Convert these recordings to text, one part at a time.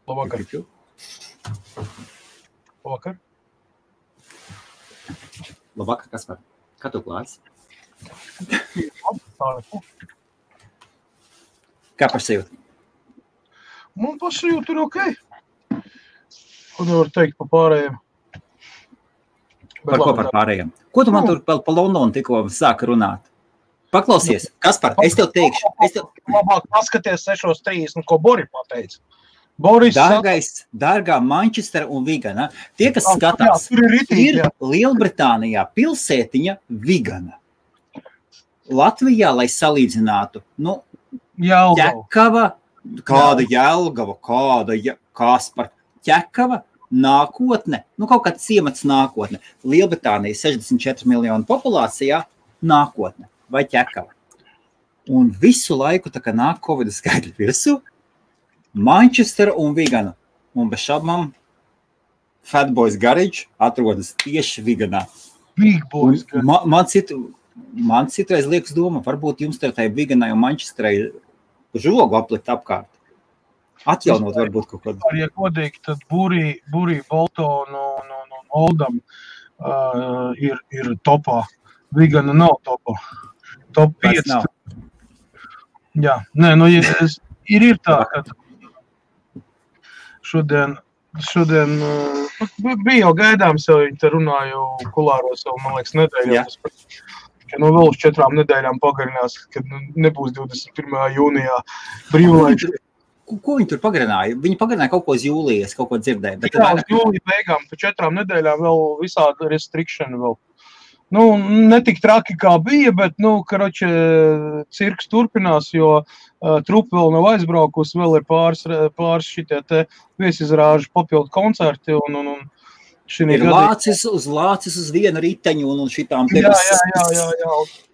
Labvakar. Labvakar. Labvakar, Kaspar. Kā tu klājas? Kā pašsajūta? Man pašsajūta ir okei. Ko nevar teikt pa pārējiem? Par ko par pārējiem? Ko tu man tur pa Londonu tikko sāka runāt? Paklausies, Kaspar, es tev teikšu. Labāk paskaties 6.30, ko Bori pateica. Dārgā Manchester un Vigana. Tie, kas skatās, ir Lielbritānijā pilsētiņa Vigana. Latvijā, lai salīdzinātu, Ķekava, kāda Jelgava, Kaspar, Ķekava, nākotne, kaut kāds ciemats nākotne. Lielbritānija 64 miljonu populācijā, nākotne vai Ķekava. Un visu laiku, tā kā nāk Covid skaitļi virsū, Manchester un Vigana. Un bez šaubām Fatboys Garage atrodas tieši Viganā. Big Boys Garage. Man citreiz liekas doma, varbūt jums tai Viganai un Manchesterai žogu aplikt apkārt. Atjaunot varbūt kaut kādu. Ja kodīgi, tad Burī, Bolton un Oldham ir topā. Vigana nav topā. Top 5. Jā, ir tā, ka šodien bija jau gaidāms, jau viņi te runāju kulāros jau, man liekas, nedēļā. Ka vēl uz 4 nedēļām pagarinās, kad nebūs 21. jūnijā brīvlaiks. Ko viņi tur pagarināja? Viņi pagarināja kaut ko uz jūlijas, kaut ko dzirdēja. Jā, uz jūlija beigām, pa 4 nedēļām vēl visādi restriction vēl. Netik traki kā bija, bet, cirks turpinās, jo trupa vēl nav aizbraukusi, vēl ir pāris šitie te viesizrāžu papildu koncerti un ir lācis uz vienu riteņu un šitām te. Jā.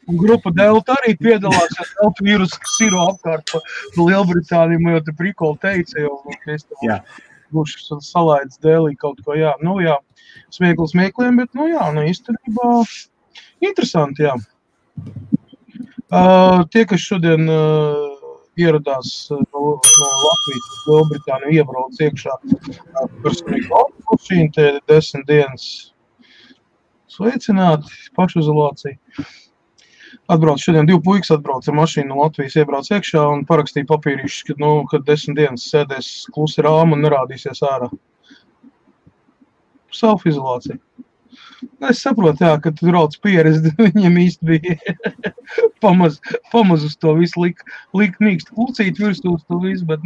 Un grupa Delta arī piedalās, ja Delta vīrus siro apkārt pa Lielbritāniju, man jau te prikoli teica, jo mēs tam būšu salaids dēlī kaut ko, smiekliem, bet, īstenībā interesanti, jā. Tie, kas šodien ieradās no Latvijas uz Lielbritāniju, iebrauc iekšā personīgi automašīnu, te 10 dienas sveicināti, pašizolācija. Šodien 2 puikas atbrauc ar mašīnu no Latvijas, iebrauc iekšā un parakstīja papīrišus, kad 10 dienas sēdēs klusi rāma un nerādīsies ārā. Self-izolācija. Es saprotu, ka tu brauc pieredzi, viņiem īsti bija pamaz uz to visu likt mīkstu klucīt virsū uz to visu, bet,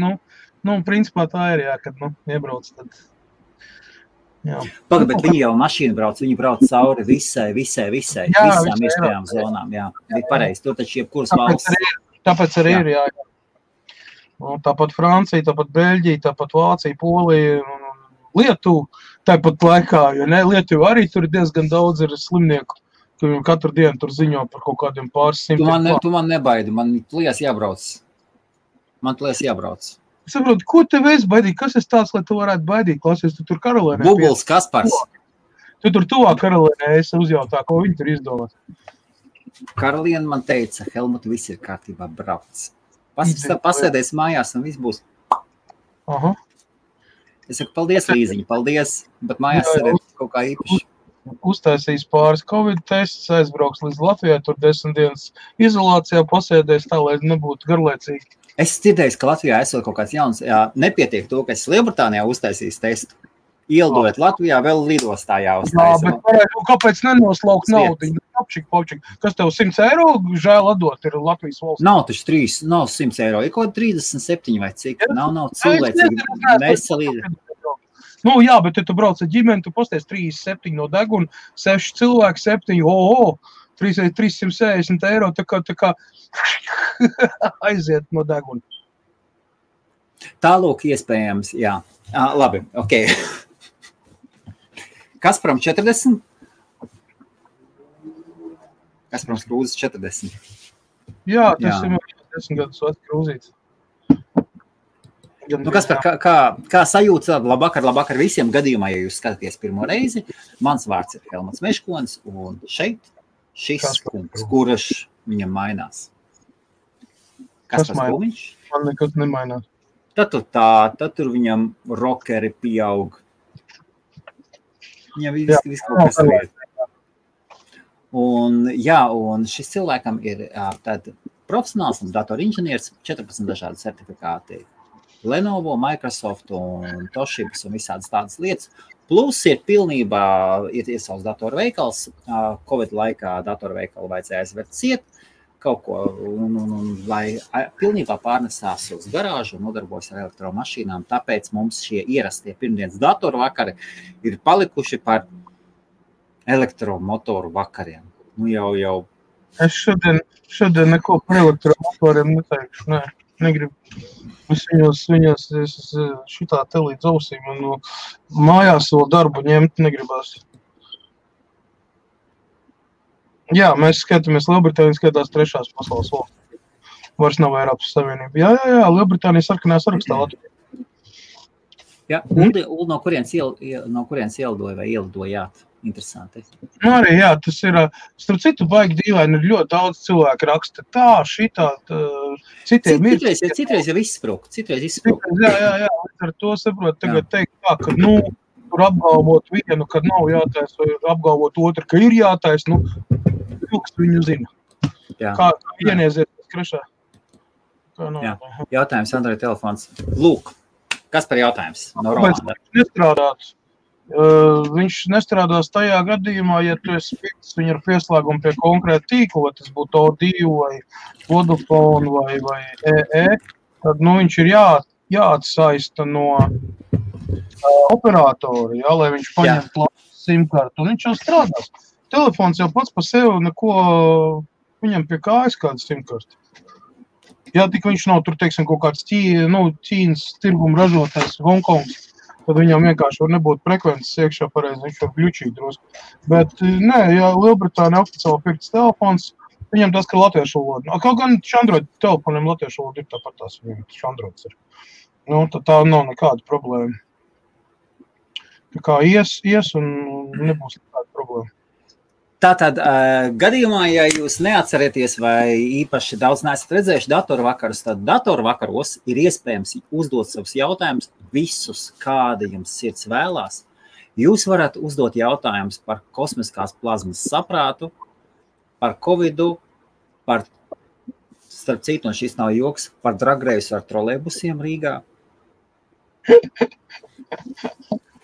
principā tā ir, kad, iebrauc tad. Pagad, bet viņi jau mašīnu brauc, viņi brauc cauri visām iespējām zonām, bija pareizi, tur taču jebkuras valsts. Tāpēc arī ir, jā. Tāpat Francija, tāpat Beļģija, tāpat Vācija, Polija un Lietuva, tāpat laikā, jo Lietuva arī tur diezgan daudz ir slimnieku, ka viņam katru dienu tur ziņo par kaut kādiem pāris simtiem. Tu man nebaidi, man lies jābrauc. Es saprotu, ko tev es baidīt? Kas es tāds, lai tu varētu baidīt? Klausies, tu tur Karolēnē. Bubuls Kaspars. Tu tur tuvā Karolēnē, es uzjautā, ko viņi tur izdomāt. Karolēna man teica, Helmut, viss ir kārtībā, brauc. Pasēdēs mājās un viss būs. Aha. Es saku, paldies, Līziņa, paldies, bet mājās arī kaut kā īpaši. Uztaisīs pāris Covid tests, aizbrauks līdz Latvijai, tur 10 dienas izolācijā pasēdēs tā, lai nebūtu garlaicīgi. Es dzirdēju, ka Latvijā esot kaut kāds jauns, nepietiek to, ka es Lielbritānijā uztaisīs testu. Ielidojot Latvijā, vēl lidostā jāuztaisa. Jā, bet kāpēc nenoslaukt naudu? Popčik. Kas tev 100 eiro žēl atdot ir Latvijas valsts? Nav taču 100 eiro, ir kaut 37 vai cik. Nav cilvēcīgi. Nesalīdzi. Jā, bet ja tu brauc ar ģimeni, tu pasties 37 no deguna, 6 cilvēki, 7, 360 eiro, tā kā aiziet no deguna. Tālūk iespējams, jā. Labi, ok. Kasparam 40? Kasparam Krūzes 40. Jā, tas ir 10 gadus vecs Krūzīts. Kaspar, kā sajūta labvakar visiem gadījumā, ja jūs skatāties pirmo reizi? Mans vārds ir Helmuts Meškonis, un šeit šis kungs, kurš viņam mainās. Kaspars Kulmiņš? Man nekas nemainās. Tad tur viņam rockeri pieaug. Viņam viss kaut kas vieta. Un šis cilvēkam ir profesionāls datorinženieris, 14 dažādi certifikāti. Lenovo, Microsoft un Toshibas un visādas tādas lietas. Plus ir pilnībā ir savs datorveikals. Covid laikā datorveikalu vajadzēja aizvērt ciet kaut ko, lai pilnībā pārnesās uz garāžu un nodarbojas ar elektromašīnām. Tāpēc mums šie ierastie pirmdienas datoru vakari ir palikuši par elektromotoru vakariem. Nu jau. Es šodien neko par elektromotoriem neteikšu, nē. Negribu. Es viņos šitā te līdz ausīm un mājās vēl darbu ņemt negribās. Jā, mēs skatāmies, Lielbritānija skatās 3. pasaules valsts. Vairs nav Eiropas Savienība. Jā, Lielbritānija sarkanā sarakstā Latvijā. Jā, Uldi, no kurienes ielidoja vai ielidojāt? Interesanti. Nu arī, jā, tas ir, starp citu, baigi dīvaini, ir ļoti daudz cilvēku raksta tā, šitā, citiem ir. Citreiz jau izsprūk. Jā, ar to saprot tagad teikt tā, ka, tur apgalvot vienu, kad nav jātais, vai apgalvot otru, ka ir jātais, vilks viņu zina. Jā. Kā vienieziet skrešā. Jā. Jautājums Android telefons. Lūk, kas par jautājums? No Romāna. Viņš nestrādās tajā gadījumā, ja tu esi fikts viņu ar pieslēgumu pie konkrēta tīkla, vai tas būtu O2 vai Vodafone vai EE, tad viņš ir jāatsaista no operatora, lai viņš paņemtu simkartu, un viņš jau strādās. Telefons jau pats par sevi neko, viņam pie kājas kāda simkarta. Ja tik viņš nav tur, teiksim, kaut kāds Ķīnas tirguma ražotājs Hongkongs, tad viņam vienkārši var nebūt frekvences iekšā pareizi, viņš var gļučīt drusku. Bet, nē, ja Lielbritānija oficiāli pirkts telefons, viņam tas, ka latviešu valoda. Kaut gan Android telefoniem latviešu valoda ir tāpat tās, viņam Androids ir. Tad tā nav nekāda problēma. Tā kā ies un nebūs nekāda problēma. Tātad, gadījumā, ja jūs neatcerieties vai īpaši daudz neesat redzējuši datorvakarus, tad datorvakaros ir iespējams uzdot savus jautājumus visus, kādi jums sirds vēlās. Jūs varat uzdot jautājumus par kosmiskās plazmas saprātu, par Covidu, par, starp citu, un šis nav joks, par dragreisu ar trolejbusiem Rīgā.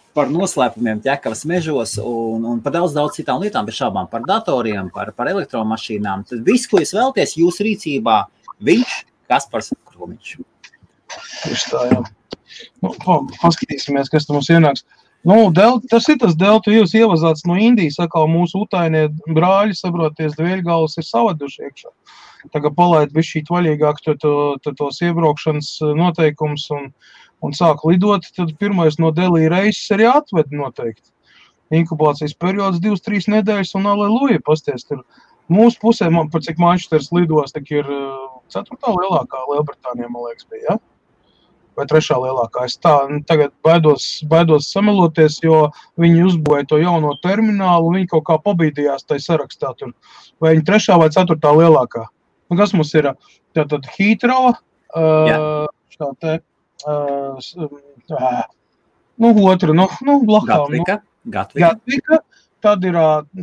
Par noslēpumiem ķekavas mežos un par daudz citām lietām, bez šābām par datoriem, par elektromašīnām. Tad viss, ko jūs vēlaties, jūsu rīcībā, viņš, Kaspars Kromiņš. Tieši tā, jā. Paskatīsimies, kas mums ienāks. Tas ir tas Delta, jūs ievazāts no Indijas, atkal mūsu utainie brāļi, saproties, dvēļgalvas ir savaduši iekšā. Tagad palaid bišķīt vaļīgāk tos iebraukšanas noteikums un sāk lidot, tad pirmais no Delī reises arī atved noteikti. Inkubācijas periods 2-3 nedēļas un aleluja, pasties tur. Mūsu pusē, par cik Manchesteras lidos, tak ir 4. lielākā Lielbritānijā, man liekas, bija, ja? Vai 3. lielākā. Es tā tagad baidos sameloties, jo viņi uzbūvēja to jauno terminālu, viņi kaut kā pabīdījās tai sarakstā tur. Vai viņi 3. vai 4. lielākā. Kas mums ir? Tātad Heathrow, blakām. Gatvika. Tad ir,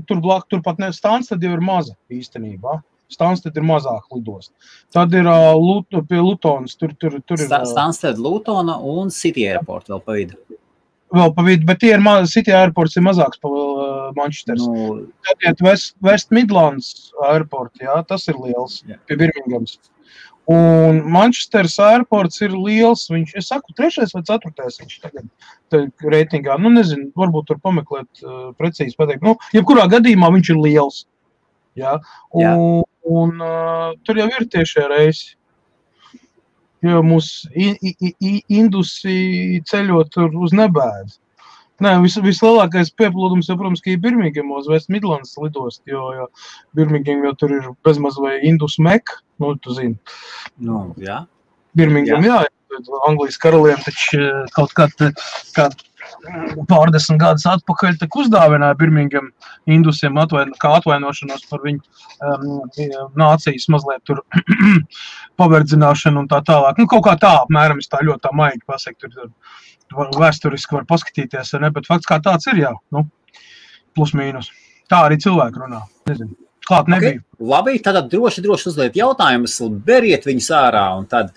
turpat Stansted jau ir maza īstenībā. Stansted ir mazāk lidost. Tad ir pie Lutonas. Tur ir Stansted, Lutona un City Airport vēl pa vidu. Bet tie ir City Airports ir mazāks pa Manchesteras. Tad iet West Midlands Airport, jā, tas ir liels, pie Birminghams. Un Manchesteras airports ir liels, es saku, 3. vai 4. viņš tagad reitingā, nezinu, varbūt tur pameklēt precīzi pateikt. Jebkurā gadījumā viņš ir liels. Jā. Un tur jau ir tiešie reisi. Jo mūs indusi ceļot tur uz nebēdu. Nē, vislielākais pieplūdums, protams, ka ir Birminghamos, West Midlands lidost, jo Birmingham jau tur ir bezmaz vai Indus Meka, tu zini. Jā. Birmingham, jā, Anglijas karaliem taču kaut pārdesmit gadus atpakaļ tak uzdāvināja Birmingham Indusiem kā atvainošanos par viņu nācijas mazliet tur paverdzināšanu un tā tālāk. Nu, kaut kā tā, apmēram, es tā ļoti tā maigi pasaku, tur vēsturiski var paskatīties, ne, bet fakts kā tāds ir, jā, nu, plus mīnus. Tā arī cilvēki runā, nezinu. Klāt nebija. Okay. Labi, tad droši uzliet jautājumus, beriet viņus ārā, un tad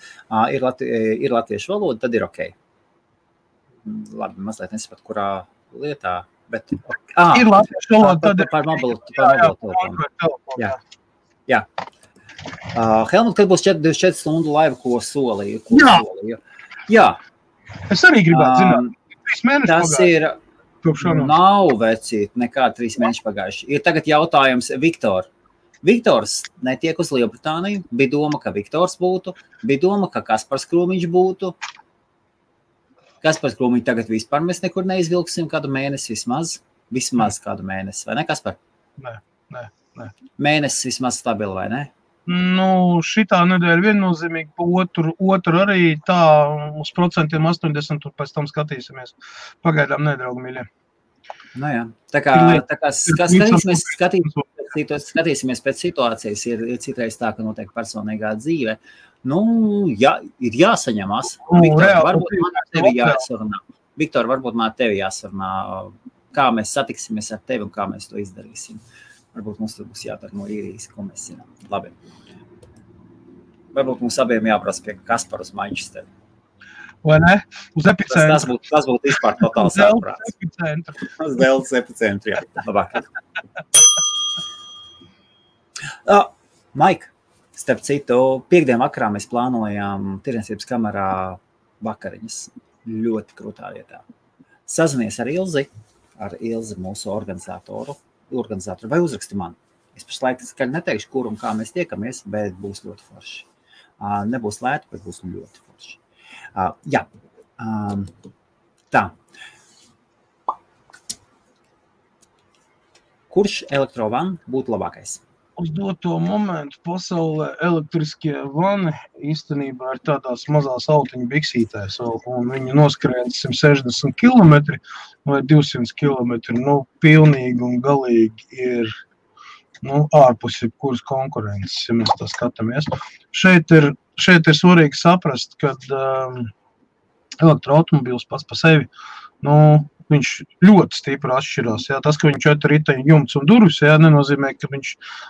ir latviešu valoda, tad ir ok. Labi, mazliet nesapat, kurā lietā, bet... ir latviešu valoda, tad ir... Par mobilu telefonu. Jā. Helmut, kad būs 24 stundu laiva, ko solīju? Jā. Es arī gribētu zināt. 3 mēneši tas pagājuši. Nav vecīt, nekā 3 mēneši pagājuši. Ir tagad jautājums Viktor. Viktors netiek uz Lielbritāniju. Bija doma, ka Viktors būtu. Bija doma, ka Kaspars Krūmiņš būtu. Kaspars Krūmiņš tagad vispār mēs nekur neizvilksim kādu mēnesi vismaz. Vismaz kādu mēnesi, vai ne, Kaspar? Nē. Mēnesis vismaz stabili, vai ne? Nu, šitā nedēļa viennozīmīgi, otru arī tā uz 80%, un pēc tam skatīsimies. Pagaidām nedraugi, mīļie. Nu jā, tā kā skatīsimies pēc situācijas, ir citreiz tā, ka notiek personīgā dzīve. Nu, ir jāsaņemās. Viktor, varbūt man tevi jāsarunā, kā mēs satiksimies ar tevi un kā mēs to izdarīsim. Varbūt mums tur būs jādara no īrijas, ko mēs zinām. Labi. Varbūt mums abiem jāprasa pie Kaspara uz Manchesteru. Vai ne? Uz epicentru. Tas būtu vispār totāls ārprāts. Uz Deltas epicentru, jā. Labāk. Maik, starp citu, piekdien vakarā mēs plānojām tirdzniecības kamerā vakariņas. Ļoti krūtā vietā. Sazinies ar Ilzi mūsu organizatoru, vai uzraksti man. Es pašlaik neteikšu, kur un kā mēs tiekamies, bet būs ļoti forši. Nebūs lēti, bet būs ļoti forši. Jā. Tā. Kurš elektrovan būtu labākais? Uz doto momentu pasaulē elektriskie vani īstenībā ir tādās mazās autiņu biksītēs, un viņi noskrien 160 km vai 200 km. Nu, pilnīgi un galīgi ir ārpus jebkuras konkurences, ja mēs tā skatāmies. Šeit ir svarīgi saprast, ka elektroautomobīls pats pa sevi, viņš ļoti stipri atšķirās. Jā. Tas, ka viņš 4 riteņu jumts un durvis, jā, nenozīmē, ka viņš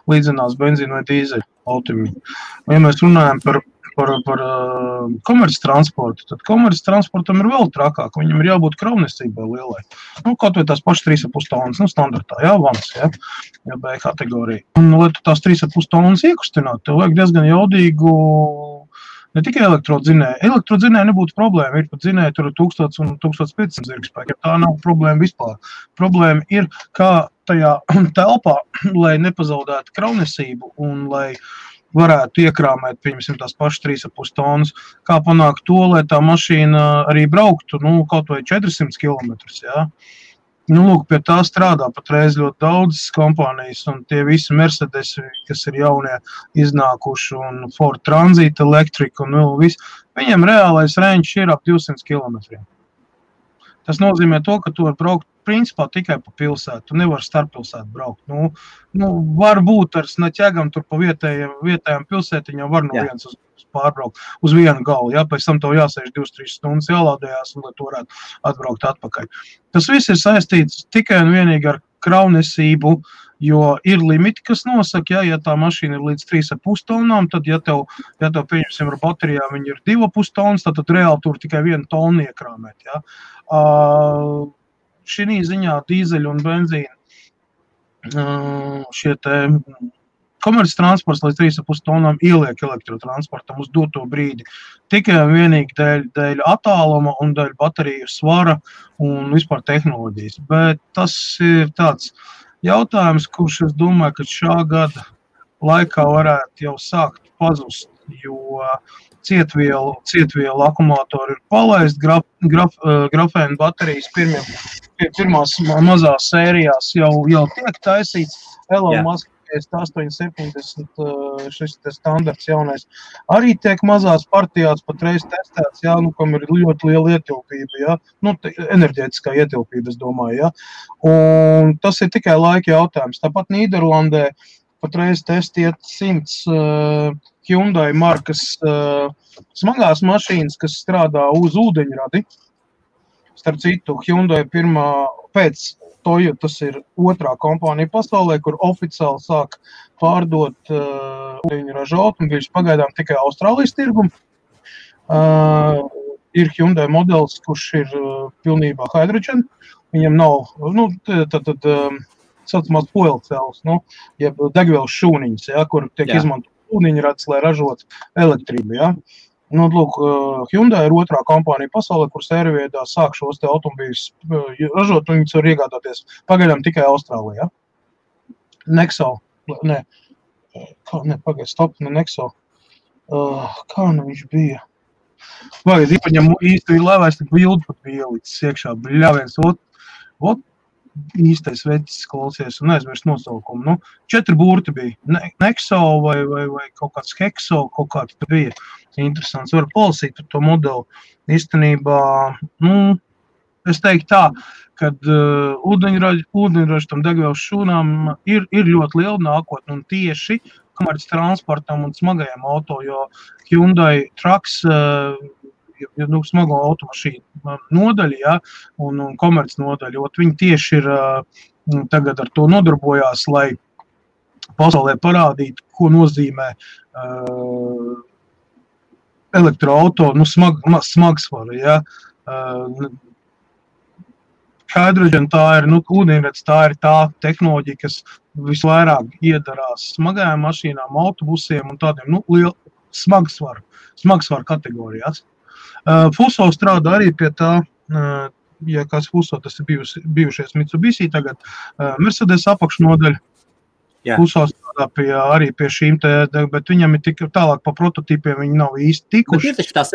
līdzinās benzīnu vai dīzeļu automobiļu. Ja mēs runājam par komerces transportu, tad komerces transportam ir vēl trakāk. Viņam ir jābūt kravnesībai lielai. Kaut vai tās pašas 3,5 tonnas, standartā, jā, vans, jā, B kategorija. Un, lai tu tās 3,5 tonnas iekustināt, tev vajag diezgan jaudīgu, ne tikai elektrodzinēju. Elektrodzinēju nebūtu problēma. Ir pat dzinēji tur 1000 un 1500 zirgspēki. Tā nav problēma vispār. Problēma ir, kā tajā telpā, lai nepazaudētu kravnesību un lai varētu iekrāmēt, pieņemsim, tās pašas 3,5 tonnas, kā panākt to, lai tā mašīna arī brauktu, kaut vai 400 km, jā. Lūk, pie tā strādā patreiz ļoti daudzas kompānijas, un tie visi Mercedes, kas ir jaunie iznākuši, un Ford Transit, Electric, un viss, viņiem reālais range ir ap 200 km. Tas nozīmē to, ka tu var braukt principā tikai pa pilsētu, tu nevar starppilsētu braukt. Varbūt ar snaķēgam tur pa vietējām pilsētiņām var no viens uz pārbraukt uz vienu galu, jā, pēc tam tev jāsēž 2-3 stundas jālādējās, un lai tu varētu atbraukt atpakaļ. Tas viss ir saistīts tikai un vienīgi ar kravnesību, jo ir limiti, kas nosaka, ja tā mašīna ir līdz 3,5 tonnām, tad, ja tev pieņemsim ar baterijām, viņi ir 2,5 tonnas, tad reāli tur tikai 1 tonu iekrāmēt, jā. Šī ziņā dīzeļu un benzīnu šie te komerces transports līdz 3,5 tonnām ieliek elektrotransportam uz doto brīdi. Tikai un vienīgi dēļ attāluma un dēļ bateriju svara un vispār tehnoloģijas. Bet tas ir tāds jautājums, kurš es domāju, ka šā gada laikā varētu jau sākt pazust, jo cietvielu akumulātori ir palaist, grafēna baterijas pirmās mazās sērijās jau tiek taisīts. Elon Musk E3870 šis standarts jaunais arī tiek mazās partijās patreiz testēts, jā, nu, kam ir ļoti liela ietilpība, jā, nu, enerģētiskā ietilpība, es domāju, jā. Un tas ir tikai laika jautājums. Tāpat Nīderlandē patreiz testiet 100 Hyundai markas smagās mašīnas, kas strādā uz ūdeņradi. Starp citu, Hyundai pirmā pēc Toyotas ir otrā kompānija pasaulē, kur oficiāli sāk pārdot ūdeņraža automobiļus pagaidām tikai Austrālijas tirgumu. Ir Hyundai modelis, kurš ir pilnībā hydrogen. Viņam nav, nu, saucamās fuel cells, nu, jeb degvielas šūniņas, ja, kur tiek izmantot ūdeņrads, lai ražot elektrību, ja. Nu, lūk, Hyundai ir otrā kompānija pasaulē, kur sērveidā sāk šos te automobīļus ražot, un viņus var iegādāties pagaidām tikai Austrālijā. Nexo, Nexo. Kā nu viņš bija? Vajag, viņam īsti lēvēs, tik bildi pat bija ielicis iekšā, bļāviens, ot, īstais vecis klausies un aizmirst nosaukumu. Nu, 4 burti bija. Nexo vai kaut kāds Hexo, kaut kāds bija interesants. Var palasīt par to modeli. Īstenībā, nu, es teiktu tā, kad ūdeņraža tam degvielas šūnām ir ļoti liela nākotne un tieši komerces transportam un smagajiem auto, jo Hyundai Trucks smago automašīnu nodaļa, ja, un komerces nodaļa, jo viņi tieši ir tagad ar to nodarbojās, lai pasaulē parādītu, ko nozīmē elektroauto, nu, smagsvaru, ja. Hydrogen tā ir, nu, ūdeņrads tā ir tā tehnoloģija, kas visvairāk iedarās smagajām mašīnām, autobusiem un tādiem, nu, lielu smagsvaru kategorijās. Fuso strādā arī pie tā, ja kāds Fuso, tas ir bijušies Mitsubishi, tagad Mercedes apakšnodaļa. Fuso strādā arī pie šīm te, bet viņam ir tik tālāk pa prototipiem, viņi nav īsti tikuši. Bet ir taču tās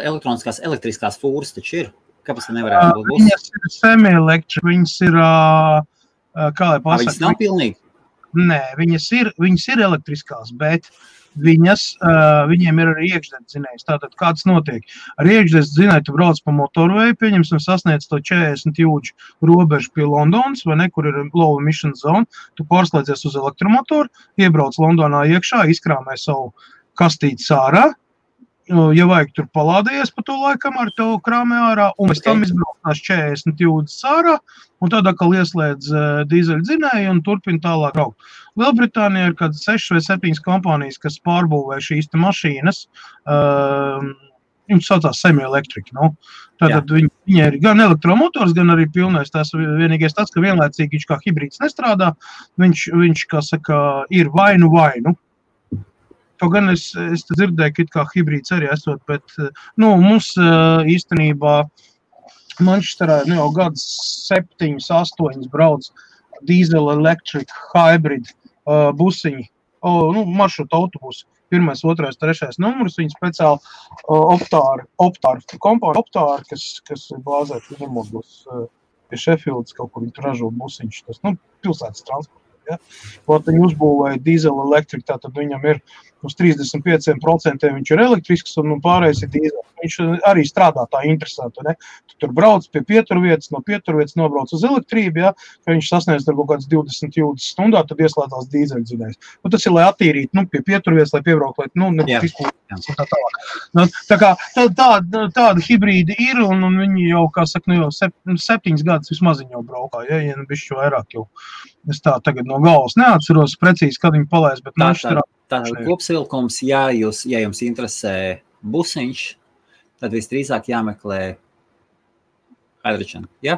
elektroniskās elektriskās fūras taču ir. Kāpēc tā nevarētu būt? Viņas ir semi-elektri, viņas ir, kā lai pasaka? Viņas nav pilnīgi? Nē, viņas ir elektriskās, bet viņiem ir arī iekšdedzinējs. Tātad, kāds notiek? Ar iekšdedzinēju tu brauc pa motorveju, pieņemsim, sasniedz to 40 jūdžu robežu pie Londonas, vai ne, kur ir low emission zone, tu pārslēdzies uz elektromotoru, iebrauc Londonā iekšā, izkrāmē savu kastīti ārā, ja vajag tur palādējies pa to laikam ar tev krāmē ārā, un pēc tam izbraucās 40 jūdzes ārā, un tad atkal ieslēdz dīzeļdzinēju un turpina tālāk braukt. Lielbritānijā ir kāds 6 vai 7 kompānijas, kas pārbūvē šīs te mašīnas, viņas saucās semi-elektrika, nu. Tātad viņi ir gan elektromotors, gan arī pilnais. Tas vienīgais tāds, ka vienlaicīgi viņš kā hibrīds nestrādā, viņš kā saka, ir vainu. Kaut gan es dzirdēju, ka it kā hibrīds arī esot, bet, nu, mums īstenībā Manchesterā jau gadus 7, 8 brauc diesel electric hybrid busiņi, nu, maršruta autobusi. 1., 2., 3. numurs, viņi speciāli Optāri kompānija Optāri, kas ir bāzēti nemodos pie Sheffieldas, kaut kur viņi ražo busiņš, tas, nu, pilsētas transports. Ja? Viņi uzbūvēja diesel elektriku, tātad viņam ir uz 35% viņš ir elektrisks un pārējais ir diesel. Viņš arī strādā tā interesanti, ne? Tu tur brauc pie pieturvietas, no pieturvietas nobrauc uz elektrību, ja? Ka viņš sasniedz ar kaut kāds 20 jūdzes stundā, tad ieslēdzās dīzeļdzinējs. Nu, tas ir, lai attīrītu, nu, pie pieturvietas, lai piebraukt, lai, nu, izpūtas un tā tālāk. Nu, tā kā tāda hibrīdi ir, un viņi jau, kā saka, nu, jau 7 gadus vismaz viņi jau braukā, ja nu bišķi vairāk jau. Es tā tagad no galvas neatceros precīzi, kad viņi palaist, bet Tātad kopsavilkums, ja jums interesē busiņš, tad visdrīzāk jāmeklē hydrogen, ja?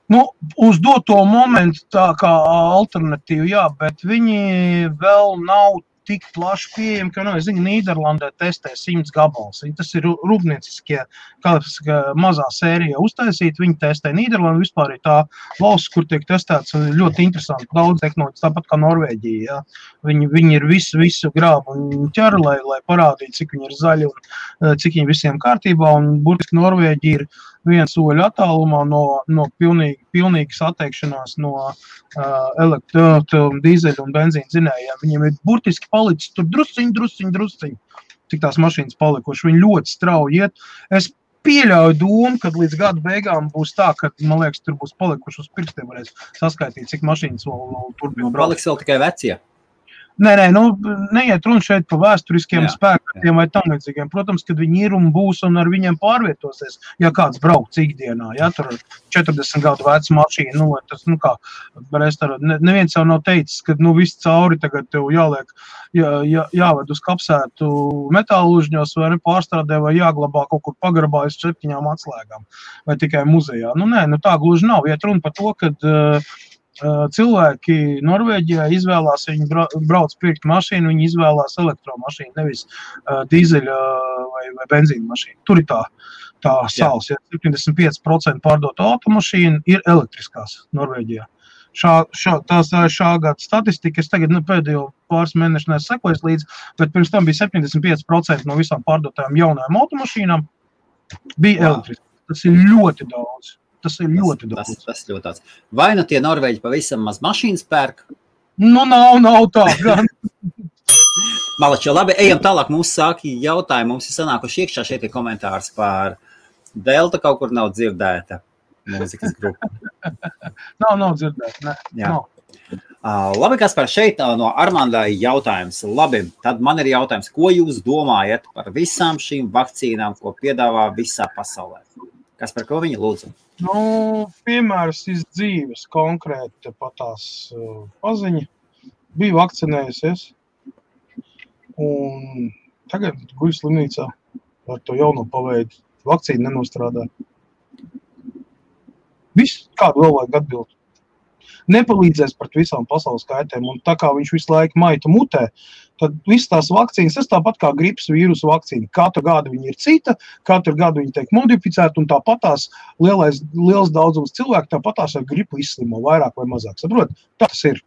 Nu, uz doto momentu tā kā alternatīva, jā, bet viņi vēl nav tik plaši pieejami, ka, es zinu, Nīderlandē testē 100 gabals. Tas ir rūpnieciskie, mazā sērija uztaisīt, viņi testē Nīderlandu, vispār ir tā valsts, kur tiek testēts ļoti interesanti, daudz tehnoloģijas, tāpat kā Norvēģija, jā. Viņi ir visu grābu un ķer, lai parādītu, cik viņi ir zaļi un cik viņi visiem kārtībā, un burtiski Norvēģija ir viena soļa attālumā no pilnīgas atteikšanās no dīzeļu un benzīna dzinējiem. Viņiem ir burtiski palicis tur drusciņ, cik tās mašīnas palikuši. Viņi ļoti strauji iet. Es pieļauju domu, kad līdz gada beigām būs tā, ka, man liekas, tur būs palikuši uz pirkstiem, varēs saskaitīt, cik mašīnas vēl turpina braukt. Paliks vēl tikai vecie. Nē, neiet runa šeit par vēsturiskiem spēkiem vai tam līdzīgiem. Protams, kad viņi ir un būs un ar viņiem pārvietosies, ja kāds brauc ikdienā, ja tur 40 gadu veca mašīna, tas, neviens jau nav teicis, ka, viss cauri tagad tev jāliek, jāved uz kapsētu metālužņos vai pārstrādē vai jāglabā kaut kur pagrabā uz 7 atslēgām vai tikai muzejā. Tā gluži nav. Iet runa par to, kad cilvēki Norvēģijā izvēlās, viņi brauc pirkt mašīnu, viņi izvēlās elektromašīnu, nevis dīzeļa vai benzīna mašīnu. Tur ir tā sāls, ja 75% pārdotu automašīnu ir elektriskās Norvēģijā. Tās ir šā gada statistika, es tagad pēdējo pāris mēnešu nesakoju līdz, bet pirms tam bija 75% no visām pārdotajām jaunajām automašīnām bija elektriski. Tas ir ļoti daudz. Tas ir ļoti daudz. Tas ļoti daudz. Vai tie Norvēģi pavisam maz mašīnas pērk? Nav tā gan. Malači, labi, ejam tālāk. Mums sāki jautājumi. Mums ir sanākuši iekšā šeit komentārs par Delta kaut kur nav dzirdēta mūzikas grupa. Nav dzirdēta, ne. Labi, Kaspar, šeit no Armandai jautājums. Labi, tad man ir jautājums, ko jūs domājat par visām šīm vakcīnām, ko piedāvā visā pasaulē? Kaspar, ko viņi lūdzu? Piemērs iz dzīves konkrēti patās paziņa. Bija vakcinējusies un tagad guļ slimnīcā ar to jauno paveidu. Vakcīna nenostrādā. Viss, kādu vēl vajag atbildi. Nepalīdzēs pret visām pasaules kaitēm, un tā kā viņš visu laiku maita mutē, tad visas tās vakcīnas, tas tāpat kā gripas vīrusu vakcīna. Katru gadu viņa ir cita, katru gadu viņa tiek modificēta, un tāpatās liels daudzums cilvēku tāpatās ar gripu izslimo vairāk vai mazāk. Saprot? Tā tas ir.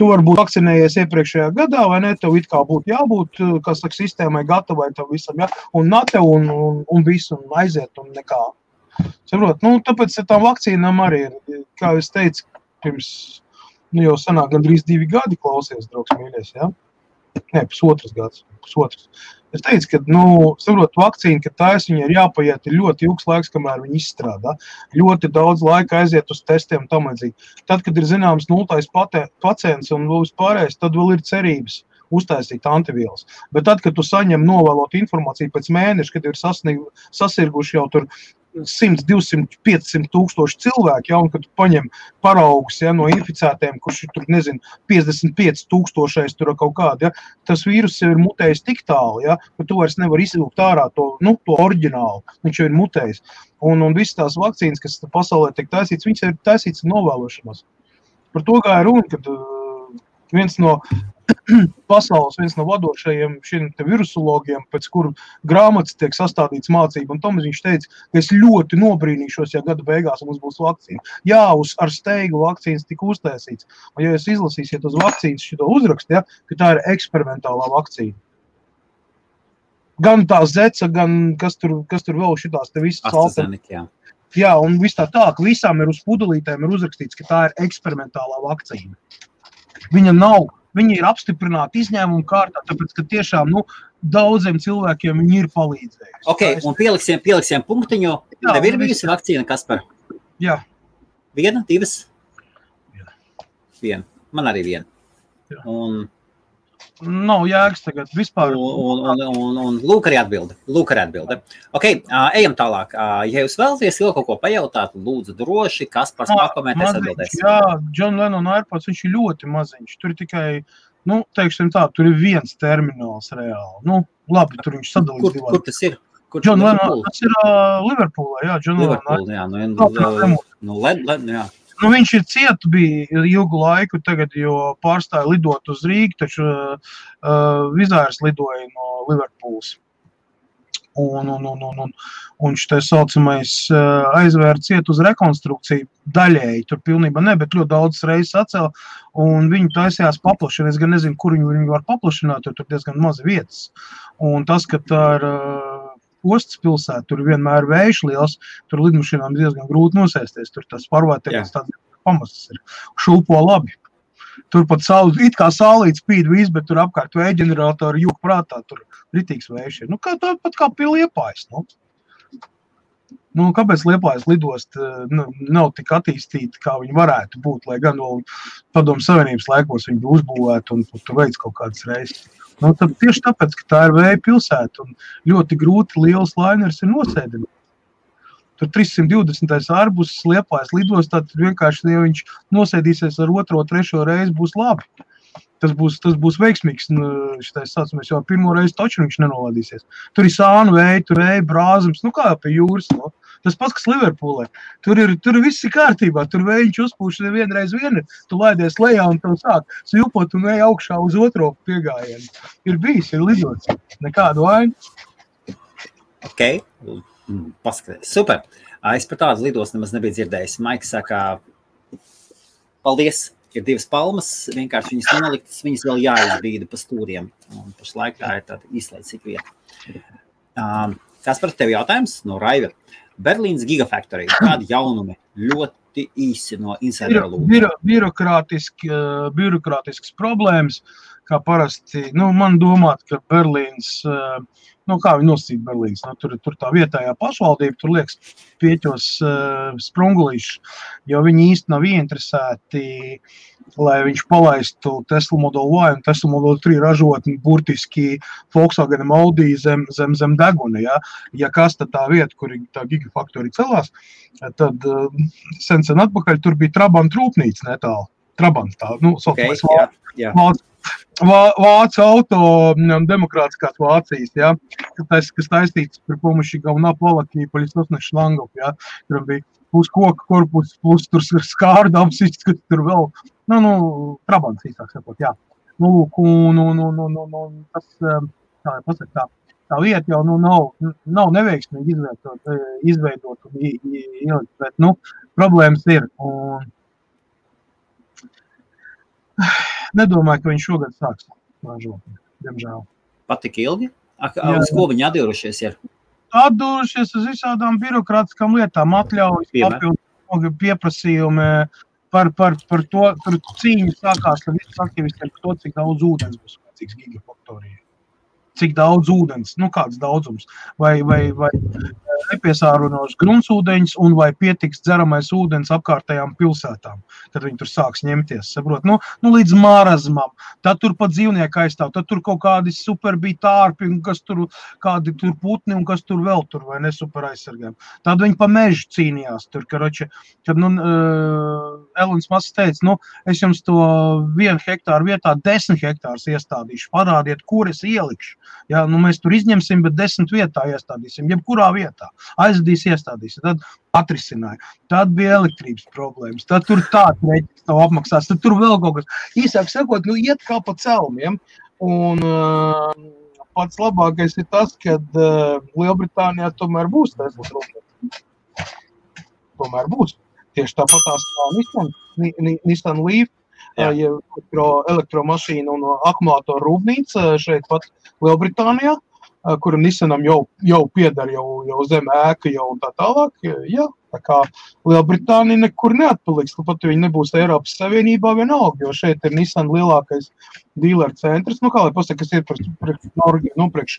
Tu vari būt vakcinējies iepriekšējā gadā, vai ne? Tev it kā būtu jābūt, kas saka, sistēmai gatavai tam visam, ja? Un nate un visu, un aiziet, un nekā. Saprot? Tāpēc ar tām vakcīnām arī ir, kā es teicu, pirms, jau sanāk gandrīz 2 gadi klausies, draugs mīļies, ja? Nē, pusotras gads. Es teicu, ka, saprot, vakcīna, ka taisa, viņa ir jāpaiet ļoti ilgs laiks, kamēr viņa izstrādā. Ļoti daudz laika aiziet uz testiem tam līdzīgi. Tad, kad ir zināms 0. pacients un vēl vispārējais, tad vēl ir cerības uztaisīt antivielas. Bet tad, kad tu saņem novēlot informāciju pēc mēneša, kad ir sasirguši jau tur 100, 200, 500 tūkstoši cilvēki, ja, un kad tu paņem paraugus, ja, no inficētiem, kurš ir tur, 55 tūkstošais tur kaut kādi, ja, tas vīrus jau ir mutējis tik tālu, ja, ka tu vairs nevar izvilkt ārā to oriģinālu, viņš jau ir mutējis. Un visas tās vakcīnas, kas pasaulē tiek taisīts, viņas ir taisīts novēlošanās. Par to kā ir runa, kad viens no pasaules, viens no vadošajiem šiem virusologiem, pēc kuru grāmatas tiek sastādīts mācība, un Tomas viņš teica, ka es ļoti nobrīnīšos, ja gada beigās mums būs vakcīna. Jā, ar steigu vakcīnas tika uztaisīts. Un ja jūs izlasīsiet uz vakcīnas šito uzrakstu, ja, ka tā ir eksperimentālā vakcīna. Gan tā zeca, gan kas tur vēl šitās te visas AstraZeneca, jā, un viss tā, ka visām ir uz pudelītēm ir uzrakstīts, ka tā ir eksperimentālā vakcīna. Viņi ir apstiprināti izņēmumu kārtā, tāpēc, ka tiešām, daudziem cilvēkiem viņi ir palīdzējuši. Ok, un pieliksim punktiņu. Tev ir bijusi vakcīna, Kaspar? Jā. 1, 2? 1. Man arī 1. Jā. Un nav jēgas tagad vispār. Un lūk arī atbilde. Ok, ejam tālāk. Ja jūs vēlaties vēl kaut ko pajautāt, lūdzu droši, Kaspars pakomentēs atbildēs. Jā, John Lennon AirPods, viņš ir ļoti maziņš. Tur ir tikai, teiksim tā, tur ir viens termināls reāli. Labi, tur viņš sadalīts divās. Kur tas ir? John Lennon, tas ir Liverpoolā, jā, John Lennon. Jā. Viņš ir ciet bija ilgu laiku tagad, jo pārstāja lidot uz Rīgu, taču Vizārs lidoja no Liverpools. Un šitais saucamais aizvēra ciet uz rekonstrukciju daļēji, tur pilnībā ne, bet ļoti daudz reizes atcēla, un viņi taisījās paplašināt. Es gan nezinu, kur viņi var paplašināt, jo tur diezgan mazi vietas. Un tas, ka tā ir ostas pilsēta, tur vienmēr vējš liels, tur lidmašīnām diezgan grūti nosēsties, tur tas pārvērtēkums tāds pamazs ir, šūpo labi. Tur pat it kā saulīt spīd viss, bet tur apkārt vēja ģeneratori jūk prātā, tur ritīgs vējš ir. Nu, pat kā pie Liepājas, nu. Nu, kāpēc Liepājas lidost nav tik attīstīta, kā viņi varētu būt, lai gan vēl Padomu Savienības laikos viņi uzbūvētu un tu veic kaut kādas reizes. Nu, tad tieši tāpēc, ka tā ir vēja pilsēta un ļoti grūti liels lainers ir nosēdināt. Tur 320. Arbus Liepājas lidostā, tad vienkārši, ja viņš nosēdīsies ar 2., 3. reizi, būs labi. Tas būs veiksmīgs, šitais saucamies, jo pirmo reizi taču viņš nenolādīsies. Tur ir sānu vēja, tur vēja brāzums, nu kā pie jūras, no. Tas pats, kas Liverpoolē. Tur viss ir kārtībā, tur vējiņš uzpūš vienreiz vienu, tu laidies lejā un tev sāk svilpot un vēja augšā uz otro piegājienu. Ir bijis, ir lidots, nekādu vainu. Ok, paskaties, super. Es par tādu lidostu nemaz nebiju dzirdējis. Maiks saka, paldies. Ir 2 palmas, vienkārši viņas noliktas, viņas vēl jāizbīda pa stūriem. Un pašlaik tā ir tāda izlaicīga vieta. Kas par tevi jautājums? No Raiva. Berlīnas Gigafactory. Kādi jaunumi? Ļoti īsi no insidera lūguma. Birokrātisks problēmas, kā parasti. Nu, man domāt, ka Berlīnas, kā viņi nosacīt Berlīnas, tur tā vietējā pašvaldība, tur liekas pieķos sprungulīši, jo viņi īsti nav ieinteresēti, lai viņš palaistu Tesla Model Y un Tesla Model 3 ražotni burtiski Volkswagen Audi zem deguna. Ja kas tad tā vieta, kur tā Gigafactory celās, tad sen atpakaļ tur bija Trabant rūpnīca netālu. Trabant tā, Vācu auto, demokrātiskās Vācijas, kas taistīts par pomoši galvenā palakī, paļisosnes šlangov, tur bija plus koka korpus, plus tur skārdams, kas tur vēl, Trabants īsāk sakot, tas, tā vieta jau nav neveiksmīgi izveidot un ielikt, bet, problēmas ir, un nedomāju, ka viņš šogad sāks ražot, diemžēl. Patik ilgi? Uz ko viņi atdūrušies ir? Atdūrušies uz visādām birokrātiskām lietām, atļaujas, papildu pieprasījumi par to, tur cīņa sākās ar visus aktivistiem, par to, cik daudz ūdens būs vajadzīgs Gigafactorijai. Cik daudz ūdens, kāds daudzums, vai nepiesārunos gruntsūdeņus un vai pietiks dzeramais ūdens apkārtējām pilsētām, kad viņi tur sāks ņemties, saprot, līdz marazmam, tad tur pat dzīvnieki aizstāv, tad tur kaut kādi super bija tārpi, kas tur, kādi tur putni un kas tur vēl tur, vai ne super aizsargājumi. Tad viņi pa mežu cīnījās tur, kad Elons Masks teica, es jums to 1 hektāru vietā 10 hektārus iestādīšu, parādiet, kur es ielikšu. Mēs tur izņemsim, bet 10 vietā iestādīsim, jebkurā vietā. Aizvedīs, iestādīs. Tad atrisināja. Tad bija elektrības problēmas. Tad tur tāds reķis tev apmaksās. Tad tur vēl kaut kas. Īsāk sakot, iet kā pa celmiem. Un pats labākais ir tas, kad Lielbritānijā tomēr būs Teslas rūpnīca. Tomēr būs. Tieši tāpatās Nissan Leaf, elektromašīna un akumulātoru rūpnīca šeit pat Lielbritānijā, kura Nissanam jau piedar jau zem ēka jau un tā tālāk. Tā kā Lielbritānija nekur neatpaliks, pat viņi nebūs Eiropas Savienībā vienalga, jo šeit ir Nissan lielākais dealer centrs, kā lai pasaka, kas ir priekš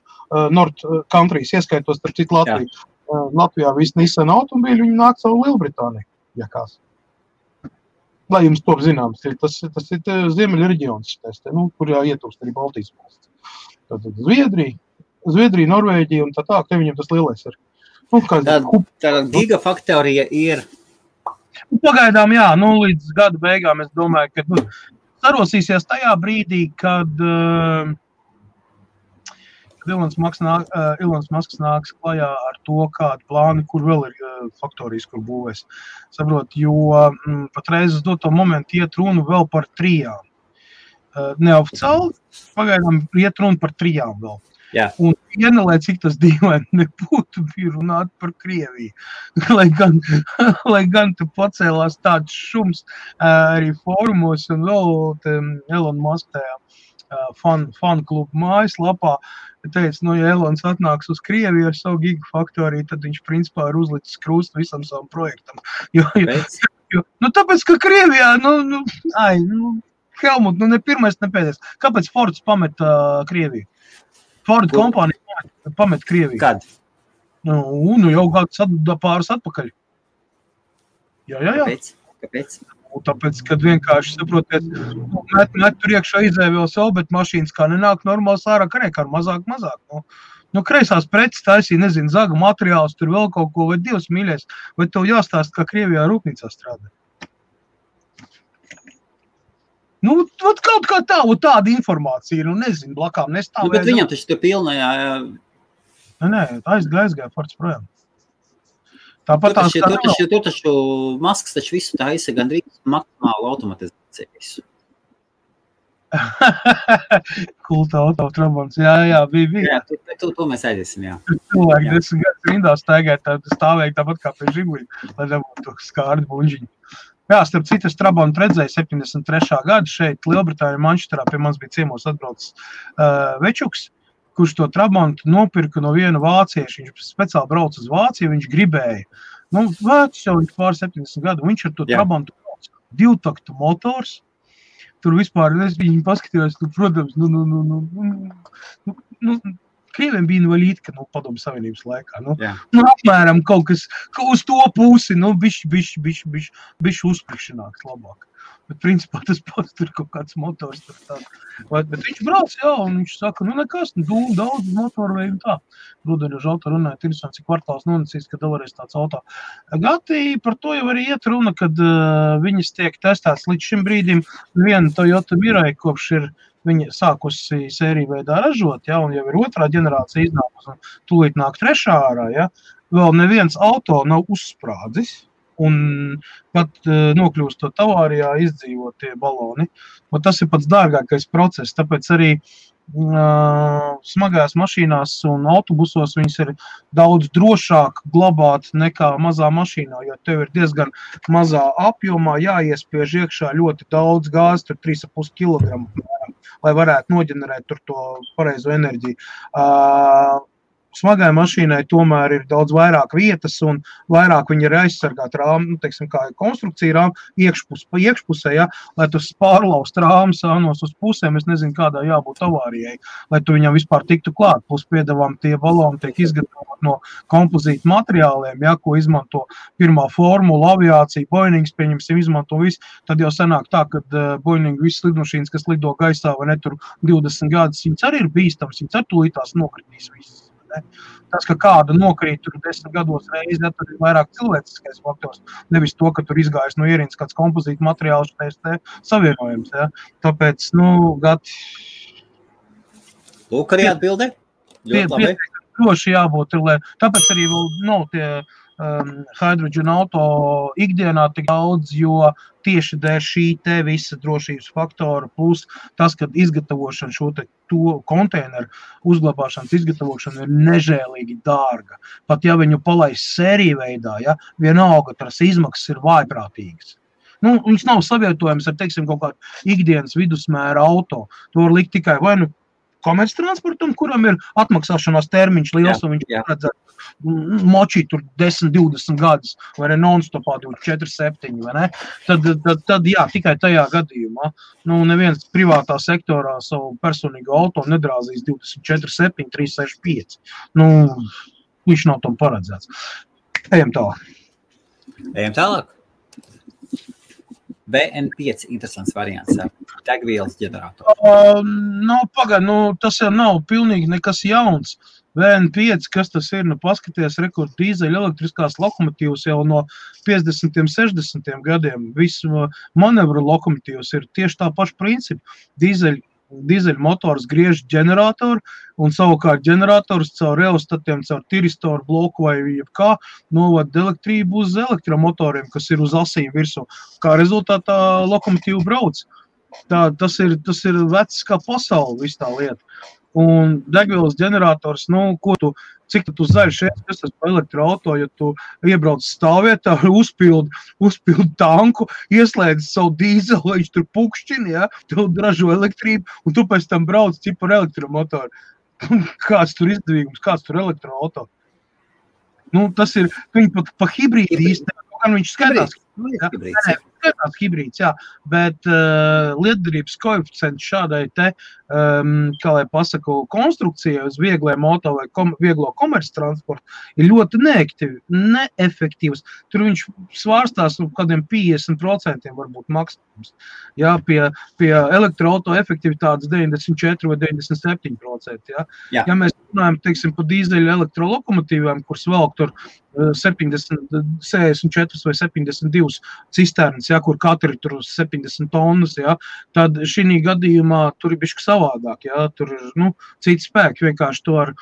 North Countries, ieskaitos starp citu Latviju. Latvijā visi Nissan automobīļi, viņi nāk savu Lielbritāniju, ja kās. Lai jums top zināms, tas ir Ziemeļa reģions, kur ietilpst arī Baltijas valsts. Tātad Zviedrija, Norvēģija un tā, te viņam tas lielais ir. Tā Gigafactorija ir? Pagaidām, līdz gada beigām es domāju, ka sarosīsies tajā brīdī, kad Ilons Masks nāks klajā ar to, kādu plānu, kur vēl ir faktorijas, kur būvēs. Saprot, jo patreiz uz doto momentu iet runu vēl par 3. Neoficiāli, pagaidām iet runa par 3 vēl. Jā. Un lai cik tas dīvaini nebūtu, bija runāt par Krieviju. lai gan tu pacēlās tāds šums arī fórumos un vēl Elon Musk tajā fanu klubu mājaslapā, teica, ja Elons atnāks uz Krieviju ar savu gigafaktoriju, tad viņš principā ir uzlicis krustu visam savam projektam. Tāpēc, ka Krievijā, Helmut, ne pirmais, ne pēdējais. Kāpēc Fords pameta Krieviju? Ford kompānija pameta Krieviju. Kad? Jau pāris atpakaļ. Jā. Kāpēc? Tāpēc, kad vienkārši saprotiet, met tur iekšā izēja vēl savu, bet mašīnas kā nenāk normāls ārā, kā mazāk. Kreisās preces taisīja, nezinu, zaga materiāls, tur vēl kaut ko, vai Dievs mīļais, vai tev jāstāst, kā Krievijā rūpnīcā strādā. Kaut kā tāda informācija, nezinu, blakām nestāvēja. Bet viņam taču tur pilnajā... Nē, aizgāja Fords projām. Tāpat tur taču Masks taču visu taisa gandrīz maksimālu automatizāciju visu. Kulta autotrabons, jā, bija. Jā, to mēs aiziesim, jā. Cilvēki 10 gadus rindā stāvēja tāpat kā pie Žiguļa, lai nebūtu skārdi buņģiņi. Jā, starp citu, es Trabontu redzēju 73. gadu šeit Lielbritānijā, Mančesterā, pie mums bija ciemos atbraucis Večuks, kurš to Trabontu nopirka no viena vācieša. Viņš speciāli brauc uz Vāciju, viņš gribēja. Vecs jau viņš pār 70 gadu, viņš ar to Trabontu brauc. 2-taktu motors. Tur vispār, viņi paskatījās, protams, Krieviem bija invalīdka, Padomu Savienības laikā. Apmēram kaut kas uz to pusi, bišķi uzprikšanāks labāk. Bet principā tas pats tur kaut kāds motors. Bet viņš brauc, un viņš saka, nekas, daudz motoru veidu tā. Rudeņožu auto runāja, interesanti, cik kvartāls nonicīs, kad vēlreiz tāds auto. Gati par to jau arī iet runa, kad viņas tiek testēts līdz šim brīdim. Viena Toyota Mirai, kopš ir viņa sākusi sēriju veidā ražot, un jau ir otrā ģenerācija iznākus, un tūlīt nāk trešā ārā, vēl neviens auto nav uzsprādzis. Un pat nokļūstot avārijā izdzīvot tie baloni. Un tas ir pats dārgākais process, tāpēc arī smagajās mašīnās un autobusos viņas ir daudz drošāk glabāt nekā mazā mašīnā, jo tev ir diezgan mazā apjomā jāiespiež iekšā ļoti daudz gāzes, tur 3,5 kilogramu, lai varētu noģenerēt tur to pareizo enerģiju. Smagai mašīnai tomēr ir daudz vairāk vietas un vairāk viņi ir aizsargāt rāmu, kā konstrukcija rāmu iekšpusē, lai tu pārlaust rāmu sānos uz pusēm, es nezinu, kādā jābūt avārijai, lai tu viņam vispār tiktu klāt. Plus piedevām tie baloni tiek izgatavot no kompozīta materiāliem, ko izmanto pirmā formula, aviācija, Boeings, pieņemsim, izmanto visu, tad jau sanāk tā, kad Boeing visas lidmašīnas, kas lido gaisā vai ne tur 20 gadus, viņas arī ir bīstams, viņas ar tūlītās nokritīs visas. Tas, ka kāda nokrīt tur 10 gados reizi, tad ir vairāk cilvēciskais faktors. Nevis to, ka tur izgājas no ierīnas kāds kompozīta materiāls savienojums. Tāpēc, gati... Lūk, arī atbildē. Ļoti labi. Droši jābūt, tāpēc arī vēl nav tie hydrogen auto ikdienā tik daudz, jo tieši dēļ šī te visa drošības faktora, plus tas, kad izgatavošana šo to konteineru uzglabāšanas izgatavošana ir nežēlīgi dārga. Pat ja viņu palaist sēriju veidā, vienalga tās izmaksas ir vājprātīgas. Viņš nav savietojams ar, kaut kādu ikdienas vidusmēra auto. To var likt tikai vai komerctransportam, kuram ir atmaksāšanās termiņš liels, un viņš paredzētu močīt tur 10-20 gadus, vai ne non-stopā 4-7, vai ne? Tad jā, tikai tajā gadījumā. Neviens privātā sektorā savu personīgu auto nedrāzīs 24-7, 365. Viņš nav tam paredzēts. Ejam tālāk. BN5 interesants variants ar degvielas ģeneratoru. Tas jau nav pilnīgi nekas jauns. BN5, kas tas ir? Paskaties, rekord dīzeļa elektriskās lokomotīvas jau no 50. 60. gadiem. Visu manevru lokomotīvas ir tieši tā paša principa. Dīzeļa motors griež ģeneratoru un savukārt ģenerators caur reostatiem, caur tiristoru bloku vai jebkā novada elektrību uz elektromotoriem, kas ir uz asīm virsū. Kā rezultātā lokomotīva brauc. Tas ir vecs kā pasauli, viss tā lieta. un degvielas ģenerators, cik tu zaļš esi pa elektroauto, ja tu iebrauc stāvvietā, uzpildi tanku, ieslēdz savu dīzelu, viņš tur pukšķini, ja, tu ražo elektrību, un tu pēc tam brauc cipu ar elektromotoru. Kāds tur izdevīgums, kāds tur elektroauto. Tas ir, viņi pa hibrīdi īstenībā, gan viņš skatās. Skatās hibrīds, jā, bet lietderības koeficients šādai te, kā lai pasaku, konstrukcijai uz vieglai moto vai vieglo komerctransportu ir ļoti neefektīvs. Tur viņš svārstās kādiem 50% varbūt maksimums. Jā, pie elektroauto efektivitātes 94 vai 97%. Jā. Ja mēs runājam, teiksim, pa dīzeļu elektrolokomotīvām, kuras velk tur 64 vai 72 cisternas, ja, kur katri tur 70 tonnas, ja, tad šī gadījumā tur ir bišķi savādāk, ja, tur ir, citi spēki, vienkārši to ar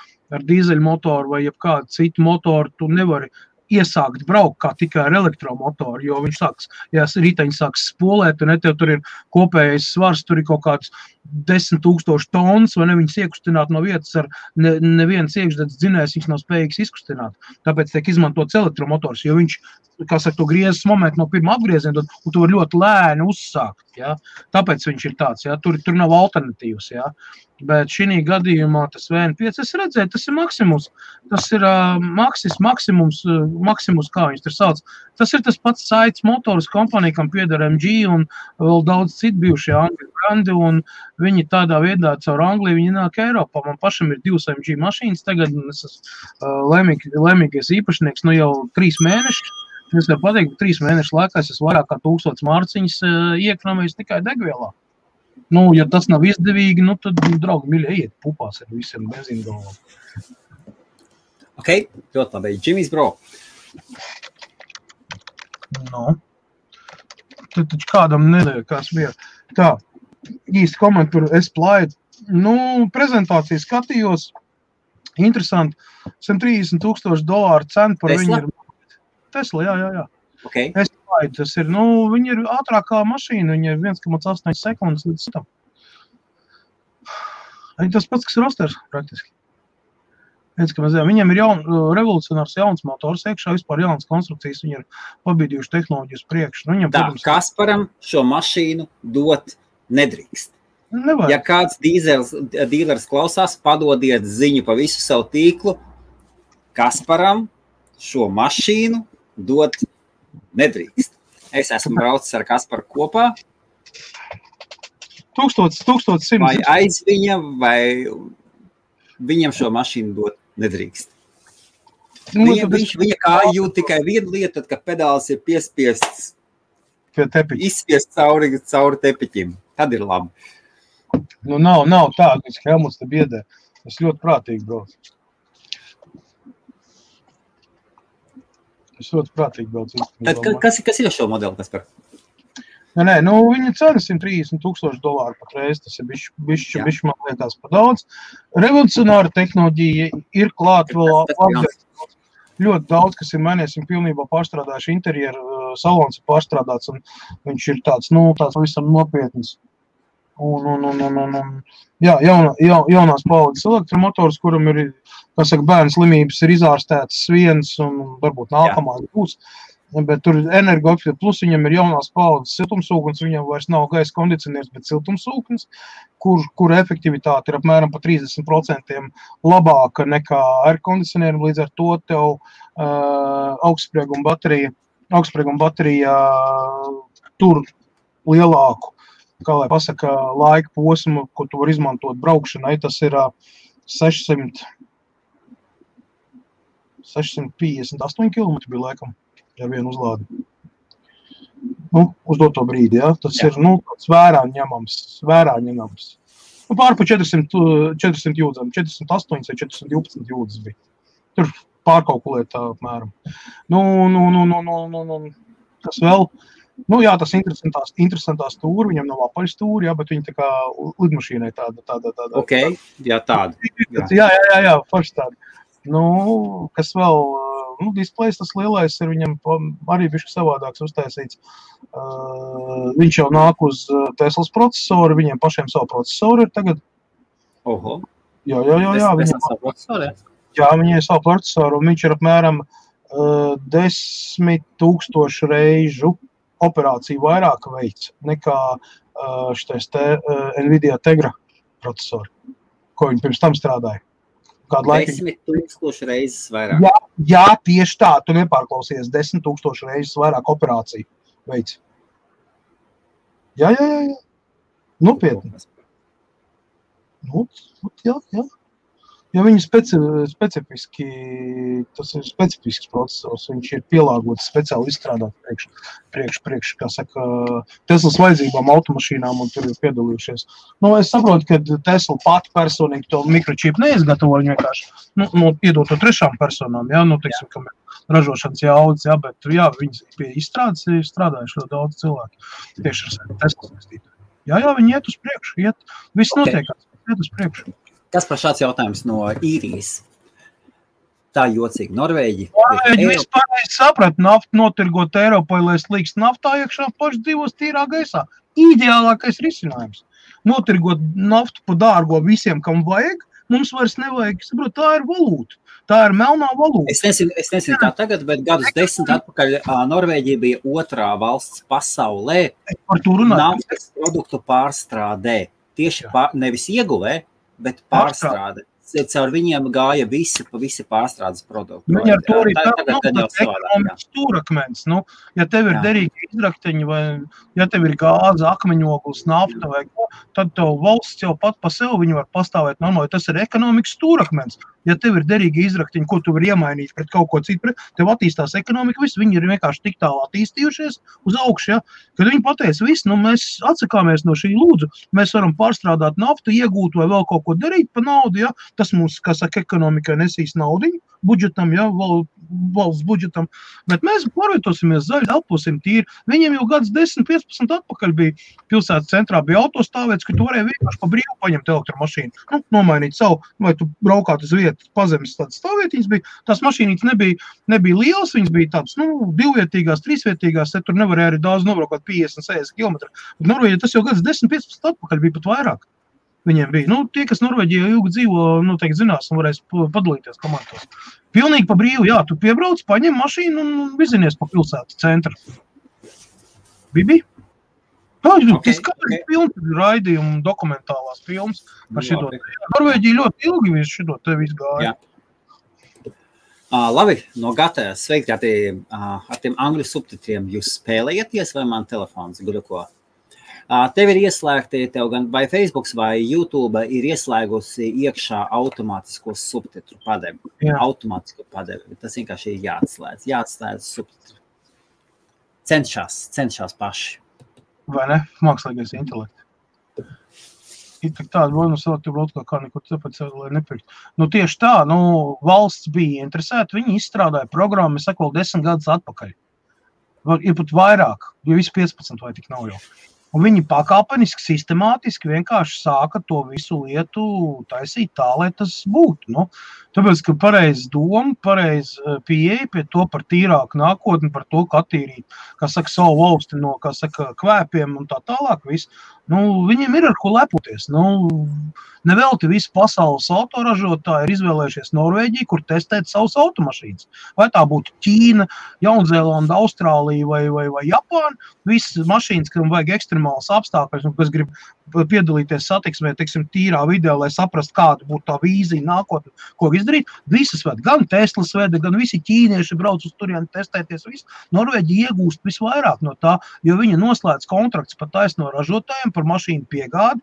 dīzeļu motoru vai jebkādu citu motoru tu nevari iesākt braukt kā tikai ar elektromotoru, jo viņš riteņi sāks spolēt, un tev tur ir kopējais svars, tur ir kaut kāds 10,000 tonnas, vai ne viņas iekustināt no vietas ar neviens iekšdedz dzinējs, viņš nav spējīgs izkustināt. Tāpēc tiek izmantots elektromotors, jo viņš, kā saka, to griezes momentu no pirmā apgrieziena, un tu var ļoti lēni uzsākt, ja. Tāpēc viņš ir tāds, ja, tur nav alternatīvas, ja. Bet šī gadījumā tas VN5, es redzēju, tas ir maksimums. Tas ir maksimums, kā viņš tur sauc. Tas ir tas pats Saits motors kompanija, kam pieder MG un vēl daudz citu bijušie Angļu brandi, un viņi tādā veidā caur Angliju, viņi nāk Eiropā. Man pašam ir 2 MG mašīnas tagad, un es esmu laimīgais īpašnieks, jau 3 mēnešus. Es varu pateikt, ka 3 mēnešu laikā es esmu vairāk kā 1000 mārciņas iekrāmējis tikai degvielā. Ja tas nav izdevīgi, tad, draugi, mīļie, ejiet pupās ar visiem benzīngalvām. Ok, ļoti labi. Jimmy's bro. Tad taču kādam nedēļ bija. Tā, īsti komentāru S-Plide. Prezentāciju skatījos. Interesanti. $130,000 cena par viņu ir. Tesla, jā. Okay. Tas ir, viņi ir ātrākā mašīna, viņi ir 1,8 sekundes līdz tam. Tas pats, kas Rosters, praktiski. Viņam ir revolucionārs jauns motors, iekšā vispār jauns konstrukcijas, viņi ir pabīdījuši tehnoloģijas priekš. Kasparam šo mašīnu dot nedrīkst. Nevajag. Ja kāds dīlers klausās, padodiet ziņu pa visu savu tīklu, Kasparam šo mašīnu dot nedrīkst. Es esmu braucis ar Kasparu kopā. 1100. Vai aiz viņa, vai viņam šo mašīnu dot nedrīkst. Viņa kā jūt tikai vienu lietu, tad, kad pedāls ir piespiests, izspiest cauri tepiķim. Tad ir labi. Nav tā, ka Helmuts te biedē. Es ļoti prātīgi braucu. Tad kas ir šo modeli, Kaspar? Viņa cena $130,000 patreiz, tas ir bišķi man liekas par daudz. Revolucionāra tehnoloģija ir klāt vēl ļoti daudz, kas ir mainījies, un pilnībā pārstrādājuši interjeru, salons ir pārstrādāts, un viņš ir tāds visam nopietnis. Jaunās paudzes elektromotors, kuram ir, kā saka, bērnu slimības ir izārstētas viens, un varbūt nākamās būs. Bet tur energoefektīvi, plus viņam ir jaunās paudzes siltumsūknis, viņam vairs nav gaisa kondicionieris, bet siltumsūknis, kur efektivitāte ir apmēram pa 30% labāka nekā air kondicionierim, līdz ar to tev augstsprieguma baterija tur lielāku, kā lai pasaka, laika posmu, ko tu var izmantot braukšanai, tas ir 658 km bija laikam. Ar vienu uzlādi. Uz doto brīdi, ja? Tas ir, tāds vērā ņemams. Pār pa 400 jūdzam, 408 vai 412 jūdzes bija. Tur pārkalkulēt tā apmēram. Kas vēl? Jā, tas interesantā stūra, viņam nav apaļ stūri, jā, bet viņi tā kā lidmašīnai tāda. Ok, jā, tāda. Jā, forši tāda. Kas vēl? Displejs tas lielais ir viņam arī bišķi savādāks uztaisīts. Viņš jau nāk uz Teslas procesoru, viņiem pašiem savu procesoru ir tagad. Oho. Jā, viņai savu procesoru, un viņš ir apmēram 10,000 reižu operāciju vairāk veids nekā šitais Nvidia Tegra procesori, ko viņi pirms tam strādāja. 10,000 reizes vairāk. Jā, tieši tā, tu nepārklausies, 10,000 reizes vairāk operāciju veids. Jā. Nopietni. Jā. Ja viņi specifiski, tas ir specifisks procesors, viņš ir pielāgots speciāli izstrādāt priekš, kā saka, Teslas vajadzībām automašīnām un tur ir piedalījušies. Es saprotu, ka Tesla pati personīgi to mikročipu neizgatavo, viņi vienkārši, iedot to trešām personām, teiksim, kam ir ražošanas jaudas, bet, viņi pie izstrādes ir strādājuši ļoti daudz cilvēku, tieši ar Teslas vestību. Jā, viņi iet uz priekšu, viss notiekās, iet uz priekšu. Kas par šāds jautājums no īrijas? Tā jocīgi. Norvēģi vispār saprat, naftu notirgot Eiropai, lai slīkst naftā iekšā, paši dzīvos tīrā gaisā. Ideālākais risinājums. Notirgot naftu pa dārgo visiem, kam vajag, mums vairs nevajag. Saprot, tā ir valūta. Tā ir melnā valūta. Es nezinu kā tagad, bet gadus 10 atpakaļ Norvēģija bija otrā valsts pasaulē naftas produktu pārstrādē. Tieši nevis ieguvē, bet pārstrāde. Caur viņiem gāja visi pārstrādes produkti. Viņi ar to arī tāds ekonomikas stūrakmens. Ja tev ir derīgi izrakteņi vai ja tev ir gāze, akmeņoglis, nafta vai ko, tad tev valsts jau pat pa sev viņi var pastāvēt normāli. Tas ir ekonomikas stūrakmens. Ja tev ir derīgi izrakteņi, ko tu var iemainīt pret kaut ko citu, tev attīstās ekonomika, viņi ir vienkārši tik tālu attīstījušies uz augšu, kad viņi pateica, mēs atsakāmies no šī lūdzu, mēs varam pārstrādāt naftu, iegūt vai vēl kaut ko darīt pa naudu, tas mums, kā saka, ekonomikai nesīs naudiņu, budžetam, valsts budžetam, bet mēs pārvietosimies zaļi, elposim tīri. Viņiem jau gads 10-15 atpakaļ bija pilsētas centrā, bija autostāvēts, ka tu varēji vienkārši pa brīvu paņemt elektromašīnu, nomainīt savu, vai tu braukāt uz vietu, pazemes tādas stāvietiņas bija, tās mašīnītes nebija lielas, viņas bija tādas, divvietīgās, trīsvietīgās, tur nevarēja arī daudz nobraukāt 50-60 km. Bet Norvēģija tas jau gads 10-15 atpakaļ bija pat vairāk. Viņiem bija. Tie, kas Norvēģijā ilgi dzīvo, noteikti zinās un varēs padalīties komandos. Pilnīgi pa brīvu, tu piebrauc, paņem mašīnu un vizinies pa pilsētu centru. Bibi? Tas kādreiz pilns raidījumu dokumentālās filmas par šito. Norvēģija ļoti ilgi visu šito te visu gāja. Labi, no gatavs. Sveiki ar tiem angļu subtitriem. Jūs spēlējaties vai man telefons guļuko? Tev ir ieslēgti, tev gan vai Facebooks vai YouTube ir ieslēgusi iekšā automātisko subtitru padevi. Automātisko padevi. Tas vienkārši ir jāatslēdz subtitru. Cenšās paši. Vai ne? Mākslīgais intelekts. Ir tik tāda, kā nekur tāpēc, lai nepirkt. Tieši tā, valsts bija interesēta, viņi izstrādāja programmu, es saku, vēl 10 gadus atpakaļ. Ir pat vairāk, jo visi 15 vai tik nav jau. Un viņi pakāpeniski, sistemātiski vienkārši sāka to visu lietu taisīt tā, lai tas būtu. Tāpēc, ka pareiz doma, pareiz pieeja pie to par tīrāku nākotni, par to, ka attīrīt, savu valsti no, kvēpiem un tā tālāk visu. Viņiem ir ar ko lepoties. Nevelti visi pasaules autoražotāji ir izvēlējušies Norvēģiju, kur testēt savus automašīnas. Vai tā būtu Ķīna, Jaunzēlanda, Austrālija vai Japāna, visas mašīnas, kam vajag ekstremālas apstākļus un kas grib piedalīties satiksmē, teiksim, tīrā video, lai saprastu, kāda būtu tā vīzija nākotnē, ko izdarīt. Visas ved, gan Teslas veda, gan visi ķīnieši brauc uz turieni testēties. Norvēģija iegūst visvairāk no tā, jo viņa noslēdz kontrakts pa taisno ražotājiem par mašīnu piegādi.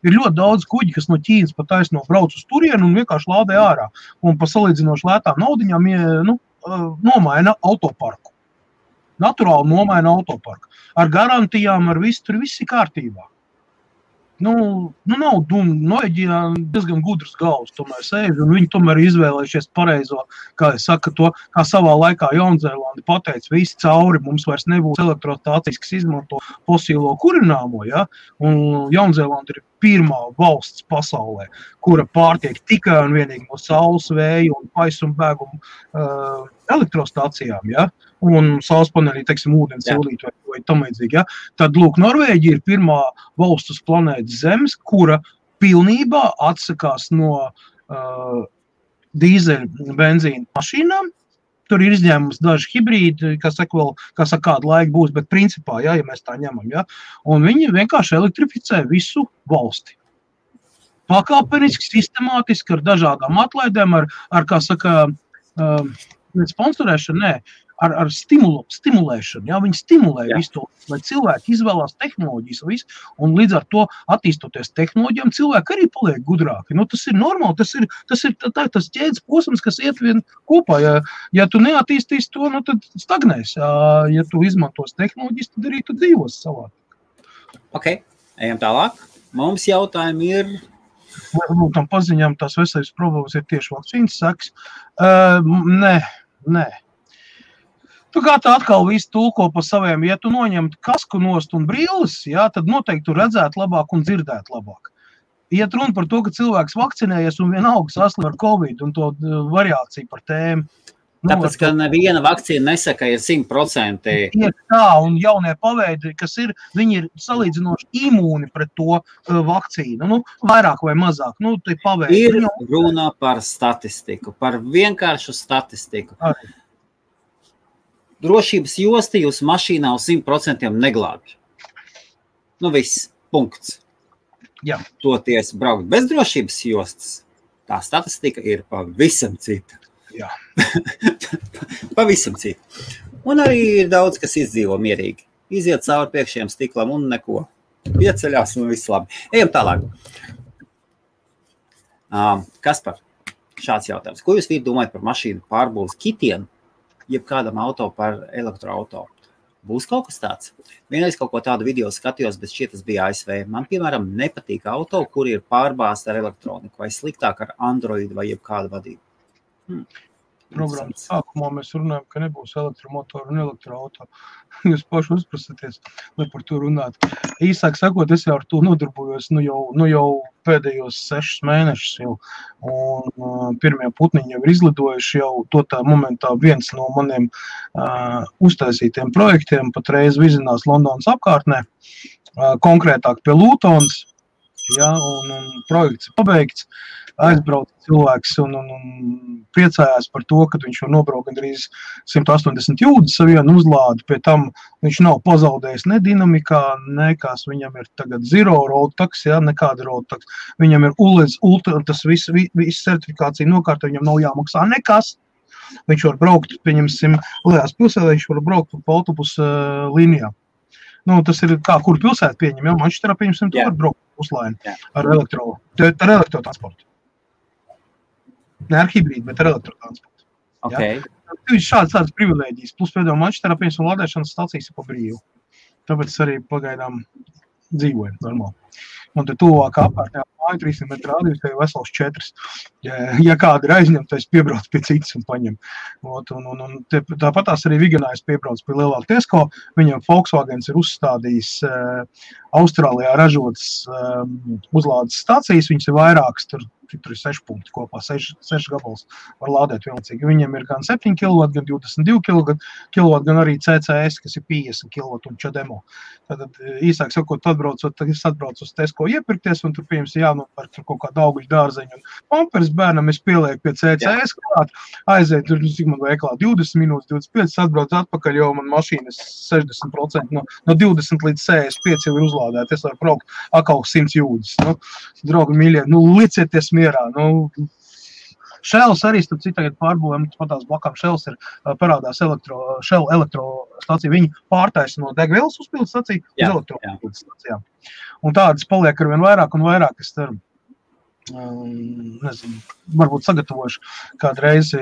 Ir ļoti daudz kuģi, kas no Ķīnas pa taisno brauc uz turieni un vienkārši lādē ārā. Un pa salīdzinoši lētām naudiņām nomaina autoparku. Naturāli nomaina autoparku. Ar garantijām, ar visu, tur viss ir kārtībā. Nav Norvēģijā diezgan gudrs galvas tomēr sēž, un viņi tomēr izvēlējušies pareizo, kā es saku to, kā savā laikā Jaunzēlandi pateica, visi cauri, mums vairs nebūs elektrostācijas, kas izmanto fosīlo kurināmo, un Jaunzēlanda ir pirmā valsts pasaulē, kura pārtiek tikai un vienīgi no saules, vēja un paisumbēgumu elektrostācijām, un saules panelī, teiksim, ūdens sildīt vai tam līdzīgi, Tad, Norvēģija ir pirmā valsts uz planētas Zemes, kura pilnībā atsakās no dīzeļu benzīna mašīnām. Tur ir izņēmums daži hibrīdi, kas saka vēl, kādu laiku būs, bet principā, ja mēs tā ņemam, un viņi vienkārši elektrificē visu valsti. Pakāpeniski, sistemātiski, ar dažādām atlaidēm, ar kā saka, sponsorēšanu, ar stimulēšanu. Ja? Viņi stimulē visu to, lai cilvēki izvēlās tehnoloģijas visu, un līdz ar to attīstoties tehnoloģijām, cilvēki arī paliek gudrāki. Tas ir normāli, tas ir tas ķēdes posms, kas iet vien kopā. Ja tu neattīstīsi to, tad stagnēs. Ja tu izmantos tehnoloģijas, tad arī tu dzīvos savā. Ok, ejam tālāk. Mums jautājumi ir... Varbūt tam paziņām tās veselības problēmas ir tieši vakcīnas seks. Nē. Tu kā tā atkal visu tulko pa saviem, ja tu noņemtu kasku nost un brīles, tad noteikti tu redzētu labāk un dzirdētu labāk. Iet runa par to, ka cilvēks vakcinējies un vienalga saslim ar Covid un to variāciju par tēmu. Tāpēc, ka neviena vakcīna nesaka, ir 100%. Ir tā, un jaunie paveidi, kas ir, viņi ir salīdzinoši imūni pret to vakcīnu. Vairāk vai mazāk. Tie paveidi. Ir runa par statistiku, par vienkāršu statistiku. Arī. Drošības josti jūs mašīnā uz 100% neglābj. Viss, punkts. Jā. Toties braukt bez drošības jostas, tā statistika ir pavisam cita. Jā. Pavisam cita. Un arī ir daudz, kas izdzīvo mierīgi. Iziet cauri priekšējiem stiklam un neko. Pieceļās un viss labi. Ejam tālāk. Kaspar, šāds jautājums. Ko jūs domājat par mašīnu pārbūves kitiem? Jeb kādam auto par elektroauto. Būs kaut kas tāds? Vienreiz kaut ko tādu video skatījos, bet šķiet tas bija ASV. Man, piemēram, nepatīk auto, kur ir pārbāzta ar elektroniku, vai sliktāk ar Android vai jeb kādu vadību. Programmas sākumā mēs runājam, ka nebūs elektromotoru un elektroauto. Jūs paši uzprasaties, lai par to runāt. Īsāk sakot, es jau ar to nodarbojos jau pēdējos 6 mēnešus jau. Un pirmie putniņi jau ir izlidojuši jau to tā momentā viens no maniem uztaisītiem projektiem patreiz vizinās Londonas apkārtnē, konkrētāk pie Lūtons, un projekts ir pabeigts. Aizbrauca cilvēks un priecājās par to, ka viņš jau nobrauc gandrīz 180 jūdzes savienu uzlādi. Pie tam viņš nav pazaudējis ne dinamikā, nekas. Viņam ir tagad zero road tax, nekāda road tax. Viņam ir ULEZ, tas viss certifikācija nokārta, viņam nav jāmaksā nekas. Viņš var braukt, pieņemsim, Lejās pilsētā, viņš var braukt pa autobusu līnijā. Tas ir kā, kur pilsēta pieņem, Manchesterā pieņemsim, tu var braukt puslaini ar elektrotransportu. Ne ar hibrīdu, bet ar elektrotransportu. Okay. Ir šādas privilēģijas. Plus pēdējā Manchesterā pieņemsim lādēšanas stācijas pa brīvu. Tāpēc es arī pagaidām dzīvoju normāli. Un te tuvākā apkārtnē māju 300 metru rādījus, te ir vesels 4. Ja kāda ir aizņemta, es piebraucu pie citas un paņem. Tāpatās arī Viganājs piebrauc pie lielāka Tesco. Viņam Volkswagens ir uzstādījis Austrālijā ražotas uzlādes stācijas. Viņas ir vairākas, tur ir 6 punkti kopā, 6 gabals var lādēt vienlaicīgi. Viņam ir gan 7 kW, gan 22 kW, gan arī CCS, kas ir 50 kW un Čademo. Tātad īsāk sakot, es atbraucu uz Tesco iepirkties, un tur pieņems jānopērk tur kaut kādu augļu dārzeņu. Un pampers bērnam es pielieku pie CCS klāt, aiziet tur, cik man veiklā, 20 minūtes, 25, atbrauc atpakaļ, jo man mašīnas 60% no 20 līdz 65 jau ir uzlādēta. Es varu braukt atkal 100 jūdzes. Draugi mīļie, licieties mierā. Shells arī, starp citu, tagad pārbūvēm, patās blakām Shells ir parādās Shell elektrostacija. Viņi pārtaisa no degvielas uzpildes staciju uz elektrouzpildes stacijām. Un tādas paliek arvien vairāk un vairāk, es ceru. Nezinu, varbūt sagatavošu kādu reizi,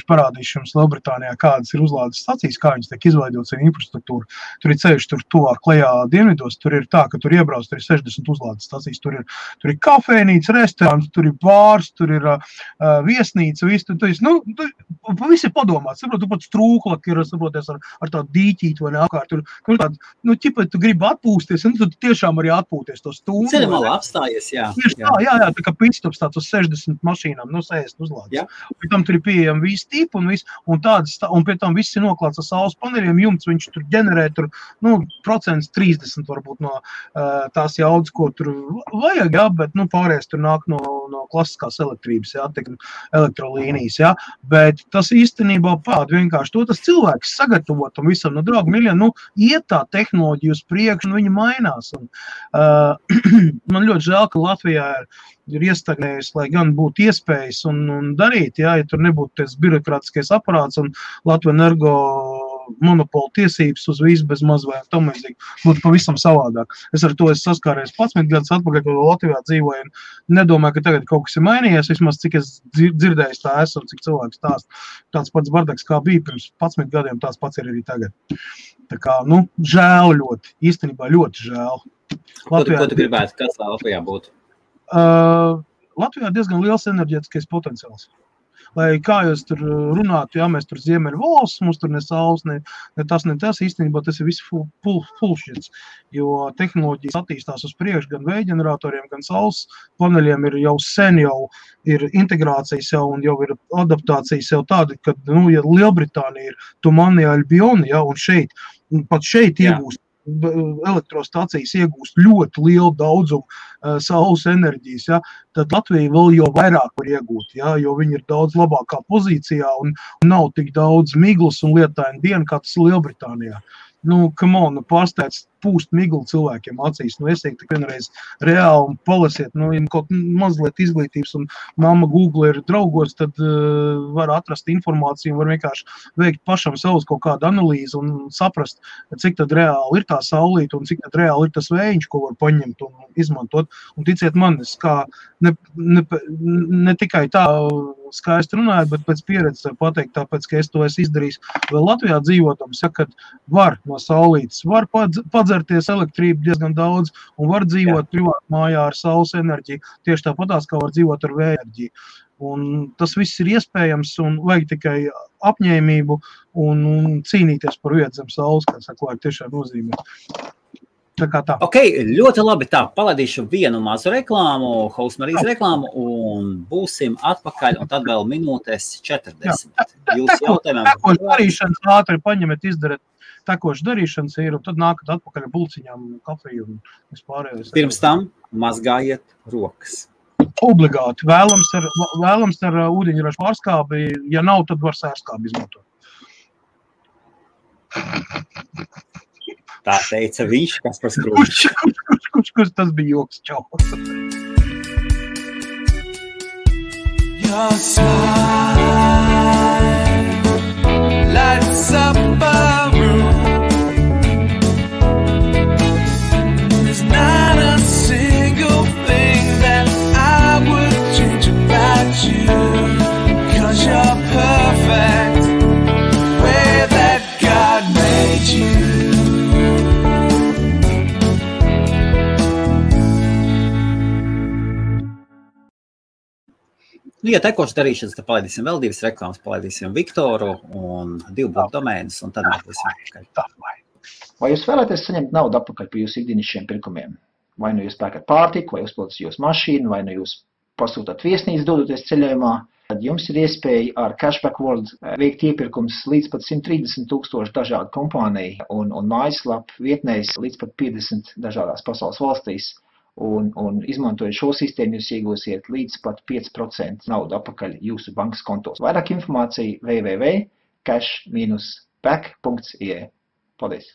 parādīšu jums Lielbritānijā, kādas ir uzlādes stacijas, kā viņas tiek izveidotas ar infrastruktūru. Tur ir ceļš, tur tuvāk klajā dienvidos, tur ir tā, ka tur iebrauc, tur ir 60 uzlādes stacijas, tur ir kafejnīca, restorāns, tur ir bārs, tur ir viesnīca, viss ir padomāts, saprot, tu pat strūklak ir, saproties, ar tādu dīķīti vai neapkārt, tur tādu, ķipa, tu gribi atpūsties, un tu tiešām arī atpūties to stundu. Ceļamāla apstājies, jā. Jā, tā kā pitstops tāds uz 60 mašīnām, no 60 uzlādes. Pēc tam tur ir pieejami visi tipi un pie tam viss ir noklāts ar saules paneļiem, jumts viņš tur ģenerē tur, 30% varbūt no tās jaudas, ko tur vajag, bet, pārējais tur nāk no klasiskās elektrības, elektrolīnijas, bet tas īstenībā vienkārši to tas cilvēks sagatavo tam visam, draugi miljoni, iet tā tehnoloģija uz priekšu, un viņi mainās. Un, man ļoti žēl, ka Latvijā ir iestagnējusi, lai gan būtu iespējas un darīt, ja tur nebūtu tas birokrātiskais aparāts un Latvijas Energo monopola tiesības uz visu bez maz vai tam līdzīgi būtu pavisam savādāk. Es ar to saskāries 11 gadus atpakaļ, kad Latvijā dzīvoju un nedomāju, ka tagad kaut kas ir mainījies, vismaz cik es dzirdēju tā esmu, cik cilvēks stāst. Tāds pats bardaks, kā bija pirms 11 gadiem, tāds pats ir arī tagad. Tā kā, žēl ļoti, īstenībā ļoti žēl. Latvijā, ko tu gribētu, kas Latvijā būtu? Latvijā diezgan liels enerģētiskais potenciāls. Lai kā jūs tur runātu, mēs tur ziemeļu valsts, mums tur ne saules, ne tas, īstenībā tas ir viss fullshits, jo tehnoloģijas attīstās uz priekšu, gan vējģeneratoriem, gan saules paneļiem ir jau sen ir integrācijas un jau ir adaptācijas jau tāda, kad, ja Lielbritānija ir Tumani Albioni, un pat šeit iegūst elektrostacijas iegūst ļoti lielu daudzumu saules enerģijas, tad Latvija vēl jau vairāk var iegūt, jo viņi ir daudz labākā pozīcijā un nav tik daudz miglas un lietaina diena, kā tas Lielbritānijā. Pārsteidz pūst miglu cilvēkiem acīs. Esiet tik vienreiz reāli un palasiet, kaut mazliet izglītības un mamma Google ir draugos, tad var atrast informāciju un var vienkārši veikt pašam savus kaut kādu analīzi un saprast, cik tad reāli ir tā saulīte un cik tad reāli ir tas vējiņš, ko var paņemt un izmantot. Un ticiet man, es kā ne tikai tā skaisti runāju, bet pēc pieredzes var pateikt, tāpēc, ka es to esmu izdarījis vēl Latvijā dzīvotams, kad var no saulītes, var padzerties elektrību diezgan daudz un var dzīvot privāti mājā ar saules enerģiju, tieši tāpatās, kā var dzīvot ar vēja enerģiju. Un tas viss ir iespējams un vajag tikai apņēmību un cīnīties par vietu zem saules, kā saka, vajag tiešām nozīmē. Tā kā tā. Ok, ļoti labi tā. Palaidīšu vienu mazu reklāmu, Hausmarijas reklāmu un būsim atpakaļ un tad vēl minūtes 40. Jūs jautājumiem. Tekoši darīšanas ātri paņemet, izdarat tekoši darīšanas ir un tad nākat atpakaļ ar bulciņām, kafiju un vispārējais. Pirms tam mazgājiet rokas. Obligāti. Vēlams ar ūdeņraža pārskābi, ja nav, tad var sērskābi izmantot. Tā teica viņš, kas par skrūši. Kurš tas bija joks, čau. Your smile lights up a room. There's not a single thing that I would change about you, 'cause you're perfect the way that God made you. Ja tekošas darīšanas, tad palaidīsim vēl divas reklāmas, palaidīsim Viktoru un 2 bloku domēnus, un tad mēs būsim atpakaļ. Vai jūs vēlaties saņemt naudu atpakaļ par jūsu ikdienišķiem pirkumiem? Vai nu jūs pērkat pārtiku, vai uzpildat jūsu mašīnu, vai nu jūs pasūtat viesnīcu dodoties ceļojumā, tad jums ir iespēja ar Cashback World veikt iepirkums līdz pat 130,000 dažādu kompāniju un mājaslapu vietnēs līdz pat 50 dažādās pasaules valstīs. Un izmantojot šo sistēmu, jūs iegūsiet līdz pat 5% naudu atpakaļ jūsu bankas kontos. Vairāk informācija www.cash-back.ie. Paldies!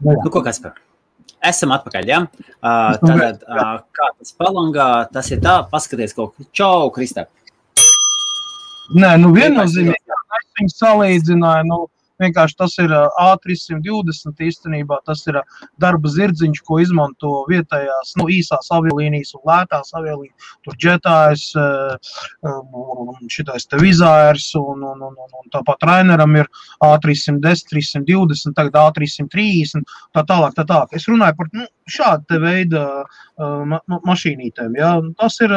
Nu, ko Kaspar? Esam atpakaļ, ja? Tātad, kā tas palangā, tas ir tā, paskaties kaut ko. Čau, Kristap! Nē, viennozīmīgi, es viņu salīdzināju, vienkārši tas ir A320 īstenībā, tas ir darba zirdziņš, ko izmanto vietējās, īsās aviolīnijas un lētās aviolīnijas, tur Jetājs, šitais te Vizairs un tāpat Raineram ir A310, 320, tagad A330, tā tālāk. Es runāju par šādu te veidu mašīnītēm, ja? Tas ir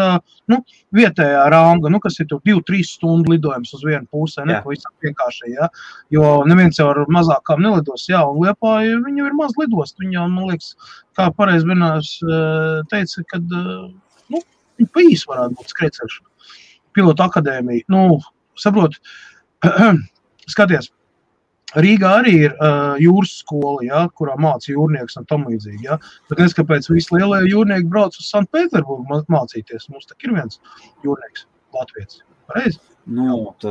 vietējā ranga, kas ir tur 2-3 stundu lidojums uz vienu pusē, pavisam vienkārši, ja? Jo neviens jau ar mazākām nelidos, un Liepāja viņu ir maz lidost, viņa, man liekas, kā pareizi vienās teica, kad, viņa pa īsi varētu būt skrēceļš, pilotu akadēmija, saprot, skaties, Rīgā arī ir jūras skola, kurā māca jūrnieks un tam līdzīgi, bet kāpēc visi lielie jūrnieki brauc uz Sanktpēterburgu mācīties, mums tak ir viens jūrnieks, Latvijas, pareizi?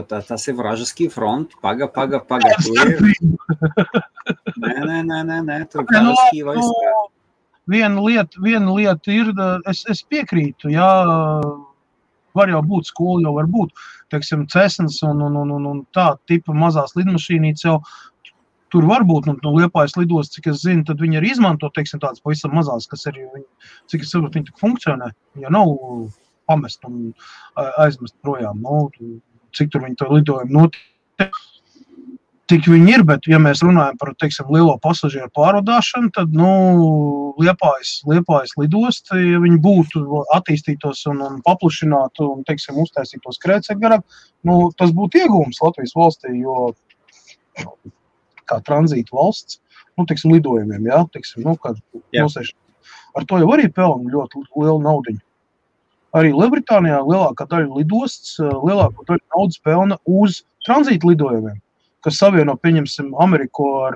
Tas ir Vražaskī front, paga, tu ir. Nē, tur Vražaskī vairs. Viena lieta ir, es piekrītu, var jau būt skola, jau var būt, teiksim, Cessnas un tā tipa mazās lidmašīnītes jau tur var būt, Liepājas lidos, cik es zinu, tad viņi arī izmanto, teiksim, tādas pavisam mazās, kas arī, cik es saprotu, viņi tik funkcionē, ja nav pamest un aizmest projām, cik tur viņi to lidojumu notiek, tik viņi ir, bet ja mēs runājam par, teiksim, lielo pasažieru pārvadāšanu, tad, Liepājas lidost, ja viņi būtu attīstītos un paplašinātu un, teiksim, uztaisītos skrēcekļu garāk, tas būtu iegūms Latvijas valstī, jo kā tranzīta valsts, teiksim, lidojumiem, teiksim, ar to jau arī pelna ļoti lielu naudiņu. Arī Lielbritānijā lielākā daļa lidosts, lielākā daļa naudas pelna uz tranzīta lidojumiem, kas savieno, pieņemsim, Ameriku ar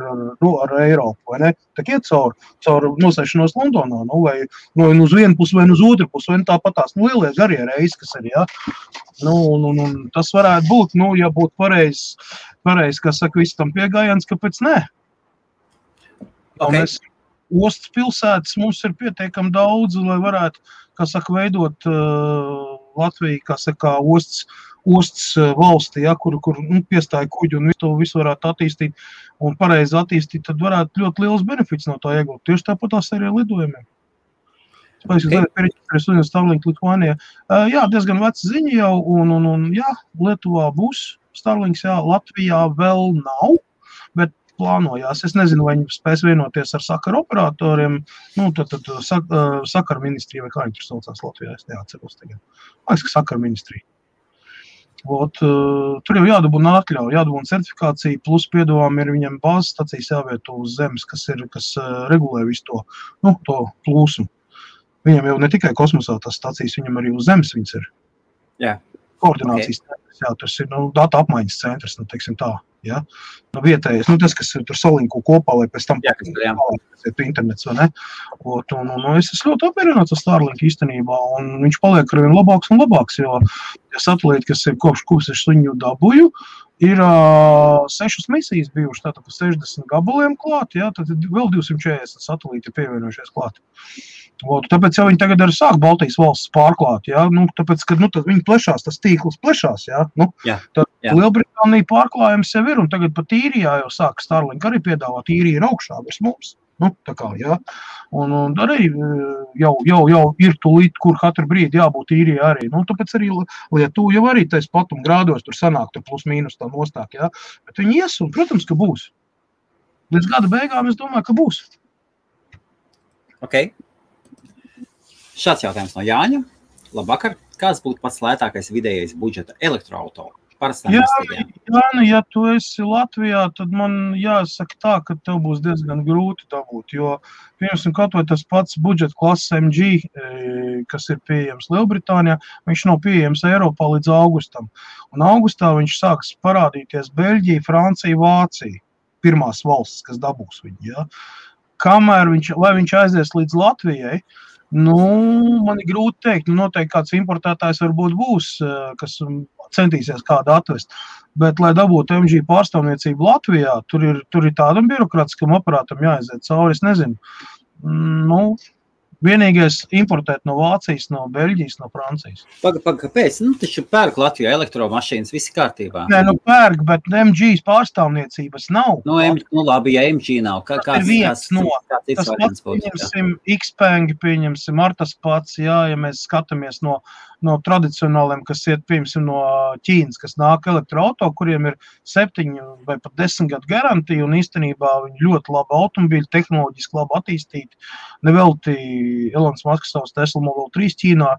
Eiropu, vai ne? Tak iet caur nosēšanos Londonā, vai uz vienu pusi, vai uz otru pusi, vai tāpatās, lielie garie reisi, kas arī, tas varētu būt, ja būtu pareizi, kas saka, viss tam piegājiens, kāpēc nē? Okay. Ostas pilsētas mums ir pietiekami daudz, lai varētu, kā saka, veidot Latviju, kā saka, ostas valsti, kur piestāja kuģi un visu varētu attīstīt un pareizi attīstīt, tad varētu ļoti liels benefits no tā iegūt. Tieši tāpat tās arī lidojumiem. Starlink Litvānijā. Diezgan veca ziņa jau, un Lietuvā būs Starlinks, Latvijā vēl nav, bet plānojās. Es nezinu, vai viņi spēs vienoties ar sakaru operatoriem, tad sakaru ministrija, vai kā viņi tur saucās Latvijā, es neatceros tagad. Man liekas, ka sakaru ministrija. Tur jau jādabūna atļauja, jādabūna certifikācija, plus piedāvām ir viņam bāzes stacijas jāvieto uz zemes, kas regulē visu to plūsmu. Viņam jau ne tikai kosmosā tās stacijas, viņam arī uz zemes viņas ir. Jā. Koordinācijas centrs, tas ir data apmaiņas centrs, teiksim tā, vietējais, tas, kas tur salinko kopā, lai pēc tam internets, vai ne? Es esmu ļoti apmierināts ar Starlinku īstenībā, un viņš paliek arvien labāks un labāks, jo satelīti, kas ir kopš es viņu dabūju, ir 6 misijas bijušas, tātad 60 gabaliem klāt, tad vēl 240 satelīti pievienojušies klāt. Tāpēc jau viņi tagad arī sāk Baltijas valsts pārklāt, tāpēc, ka tad viņi plešās, tas tīkls plešās, tad Lielbritānija pārklājums jau ir, un tagad pat Īrijā jau sāk Starlink arī piedāvāt, Īrija ir augšā virs mums, tā kā, un arī jau ir tūlīt, kur katru brīdi jābūt Īrijā arī, tāpēc arī Lietuva jau arī tais platuma grādos tur sanāk, tur plus mīnus tā nostāk, bet viņi ies, un, protams, ka būs. Līdz gada beigām es domāju, ka būs. Ok. Šāds jautājums no Jāņa. Labvakar. Kāds būtu pats lētākais vidējais budžeta elektroauto? Ja tu esi Latvijā, tad man jāsaka tā, ka tev būs diezgan grūti dabūt, jo, piemēram, kaut vai tas pats budžeta klases MG, kas ir pieejams Lielbritānijā, viņš nav pieejams Eiropā līdz augustam. Un augustā viņš sāks parādīties Beļģija, Francija, Vācija, pirmās valstis, kas dabūs viņu, Kamēr viņš aizies līdz Latvijai, man ir grūti teikt, noteikti kāds importētājs varbūt būs, kas centīsies kādu atvest, bet, lai dabūtu MG pārstāvniecību Latvijā, tur ir tādam birokrātiskam aparātam jāaiziet cauri, es nezinu. Vienīgais importēt no Vācijas, no Beļģijas, no Francijas. Kāpēc? Taču pērk Latvijā elektromašīnas, visi kārtībā. Nē, pērk, bet MG pārstāvniecības nav. Labi, ja MG nav. Tas ir viens no. Tas pats, pieņemsim, Xpeng, pieņemsim, ar tas pats, jā, ja mēs skatāmies no tradicionāliem, kas iet, pieņemsim, no Ķīnas, kas nāk elektroauto, kuriem ir 7 vai pat 10 gadu garantija, un īstenībā viņi ļoti labi automobīļi, tehnoloģiski labi attīstīti. Nevelti Elons Musks savus Tesla Model 3 Ķīnā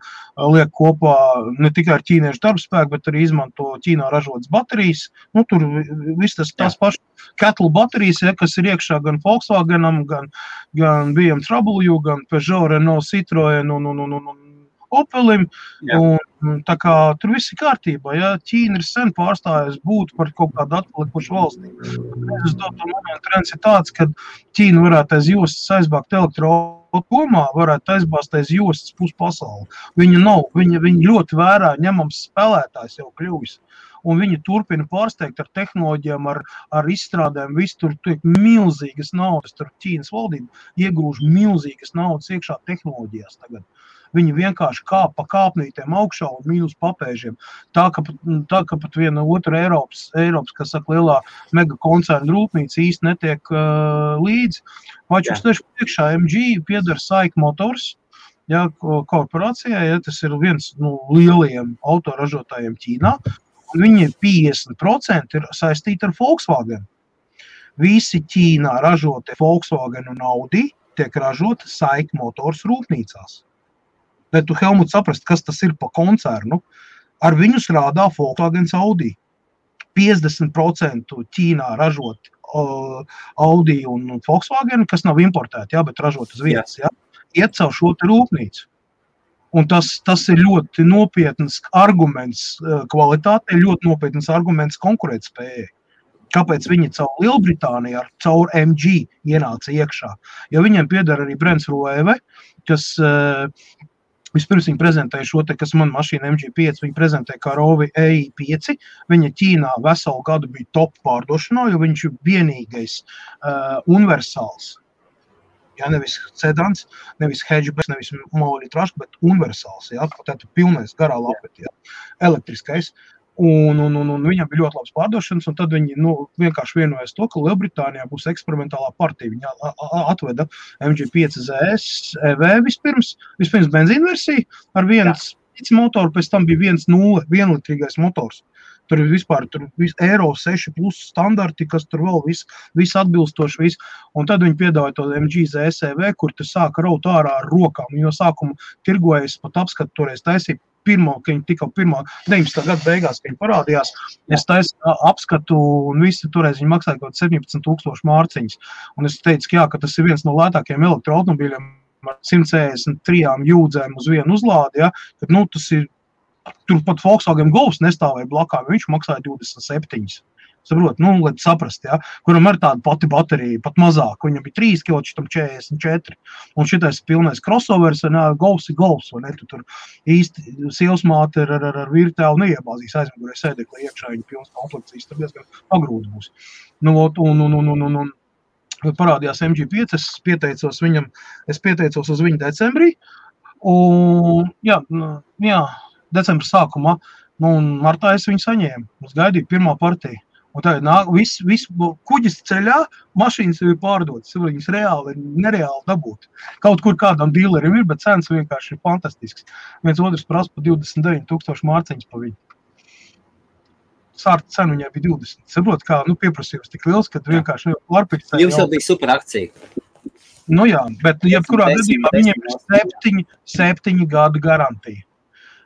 liek kopā ne tikai ar ķīniešu darbspēku, bet arī izmanto Ķīnā ražotas baterijas. Tur viss tās pašas Kettle baterijas, ja, kas ir iekšā gan Volkswagenam, gan BMW, gan Peugeot, Renault, Citroen un Opelim, un tā kā tur viss ir kārtībā, ja Ķīna ir sen pārstājusi būt par kaut kādu atpalikušu valstī. Es domāju, momentu trends ir tāds, ka Ķīna varētu aiz jostas aizbāgt elektroautomā, varētu aizbāzt aiz jostas pus pasauli. Viņa nav, viņa ļoti vērā ņemams spēlētājs jau kļuvis. Un viņi turpina pārsteigt ar tehnoloģijām, ar izstrādēm, viss tur tiek milzīgas naudas, tur Ķīnas valdība iegrūž milzīgas naudas iekšā tehnoloģijās tagad. Viņi vienkārši kāp pa kāpnītēm augšā un mīnus papēžiem. Tā, ka pat viena otra Eiropas, kas saka, lielā mega koncerna rūpnīca īsti netiek līdzi. Vačus tieši priekšā MG pieder SAIC Motors, ja, korporācijai, ja, tas ir viens no lielajiem autoražotājiem Ķīnā. Viņi 50% ir saistīti ar Volkswagen. Visi Ķīnā ražotie Volkswagen un Audi tiek ražoti SAIC Motors rūpnīcās. Lai tu, Helmut, saprast, kas tas ir pa koncernu, ar viņu strādā Volkswagen Audi. 50% Ķīnā ražot Audi un Volkswagen, kas nav importēti, jā, bet ražot uz vietas, jā, iet caur šo te rūpnīcu. Un tas ir ļoti nopietns arguments kvalitātei, ļoti nopietns arguments konkurētspējai. Kāpēc viņi caur Lielbritāniju, caur MG ienāca iekšā? Jo viņiem pieder arī Brents Rueve, kas vispirms viņi prezentēja šo te, kas man mašīna MG5, viņi prezentēja kā Rovi EI5. Viņa Ķīnā veselu gadu bija top pārdošanā, jo viņš ir vienīgais universāls. Ja, nevis sedans, nevis hatchback, nevis monolitrašs, bet universāls. Ja, tātad pilnais garā lapeti, ja, elektriskais. Un viņam bija ļoti labs pārdošanas, un tad viņi vienkārši vienojas to, ka Lielbritānijā būs eksperimentālā partija. Viņa atveda MG5 ZS EV vispirms benzīna versija ar viens motoru, pēc tam bija 1.0 vienlitrīgais motors. Tur ir vispār Euro 6 plus standarti, kas tur vēl viss atbilstoši viss. Un tad viņi piedāvāja to MG ZS EV, kur tu sāka raut ārā ar rokām. Jo sākumu tirgojas pat apskatu toreiz taisīja. Ka viņi tikko 19. gada beigās, ka viņi parādījās, es taisu apskatu un visi toreiz viņi maksāja kaut 17,000 mārciņas. Un es teicu, ka jā, ka tas ir viens no lētākajiem elektroautomobīļiem ar 163 jūdzēm uz vienu uzlādi, ja, kad, tas ir, tur pat Volkswagen Golfs nestāvēja blakām, viņš maksāja 27. Saprot, lai saprast, ja, kuram ir tāda pati baterija, pat mazāk, viņam bija 3 kg, šitam 44. Un šitais pilnais crossovers, Golfs ir Golfs, vai ne, tu tur īsti sievsmāte ar virtuāli neiebāzīs aizmugurē sēdekli iekšā, viņa pilnas komplekcijas, tur diezgan pagrūti būs. Un parādījās MG5, es pieteicos uz viņu decembrī, un jā, decembra sākumā, un martā es viņu saņēmu, es gaidīju pirmā partija. Un tā viss kuģis ceļā, mašīnas jau ir pārdotas, viņas nereāli dabūt. Kaut kur kādam dīlerim ir, bet cenas vienkārši ir fantastisks. Viens otrs prasa pa 29,000 mārciņas pa viņu. Sārta cena viņai bija 20. Saprot, kā pieprasījums tik liels, kad vienkārši pārpirkt. Jums jau bija super akcija. Jā, bet jebkurā gadījumā viņiem ir 7 gadu garantija.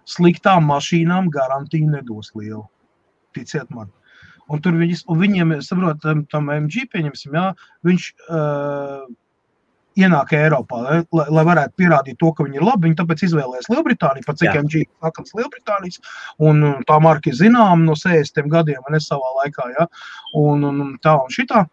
Sliktām mašīnām garantiju nedos lielu. Ticiet man. Un viņiem, saprot, tam MG, pieņemsim, jā, viņš ienāk Eiropā, lai varētu pierādīt to, ka viņi ir labi. Viņi tāpēc izvēlēs Lielbritāniju, pat cik MG sakams Lielbritānijas, un tā marka ir zinām no 60 gadiem, un es savā laikā, jā, un tā un šitā.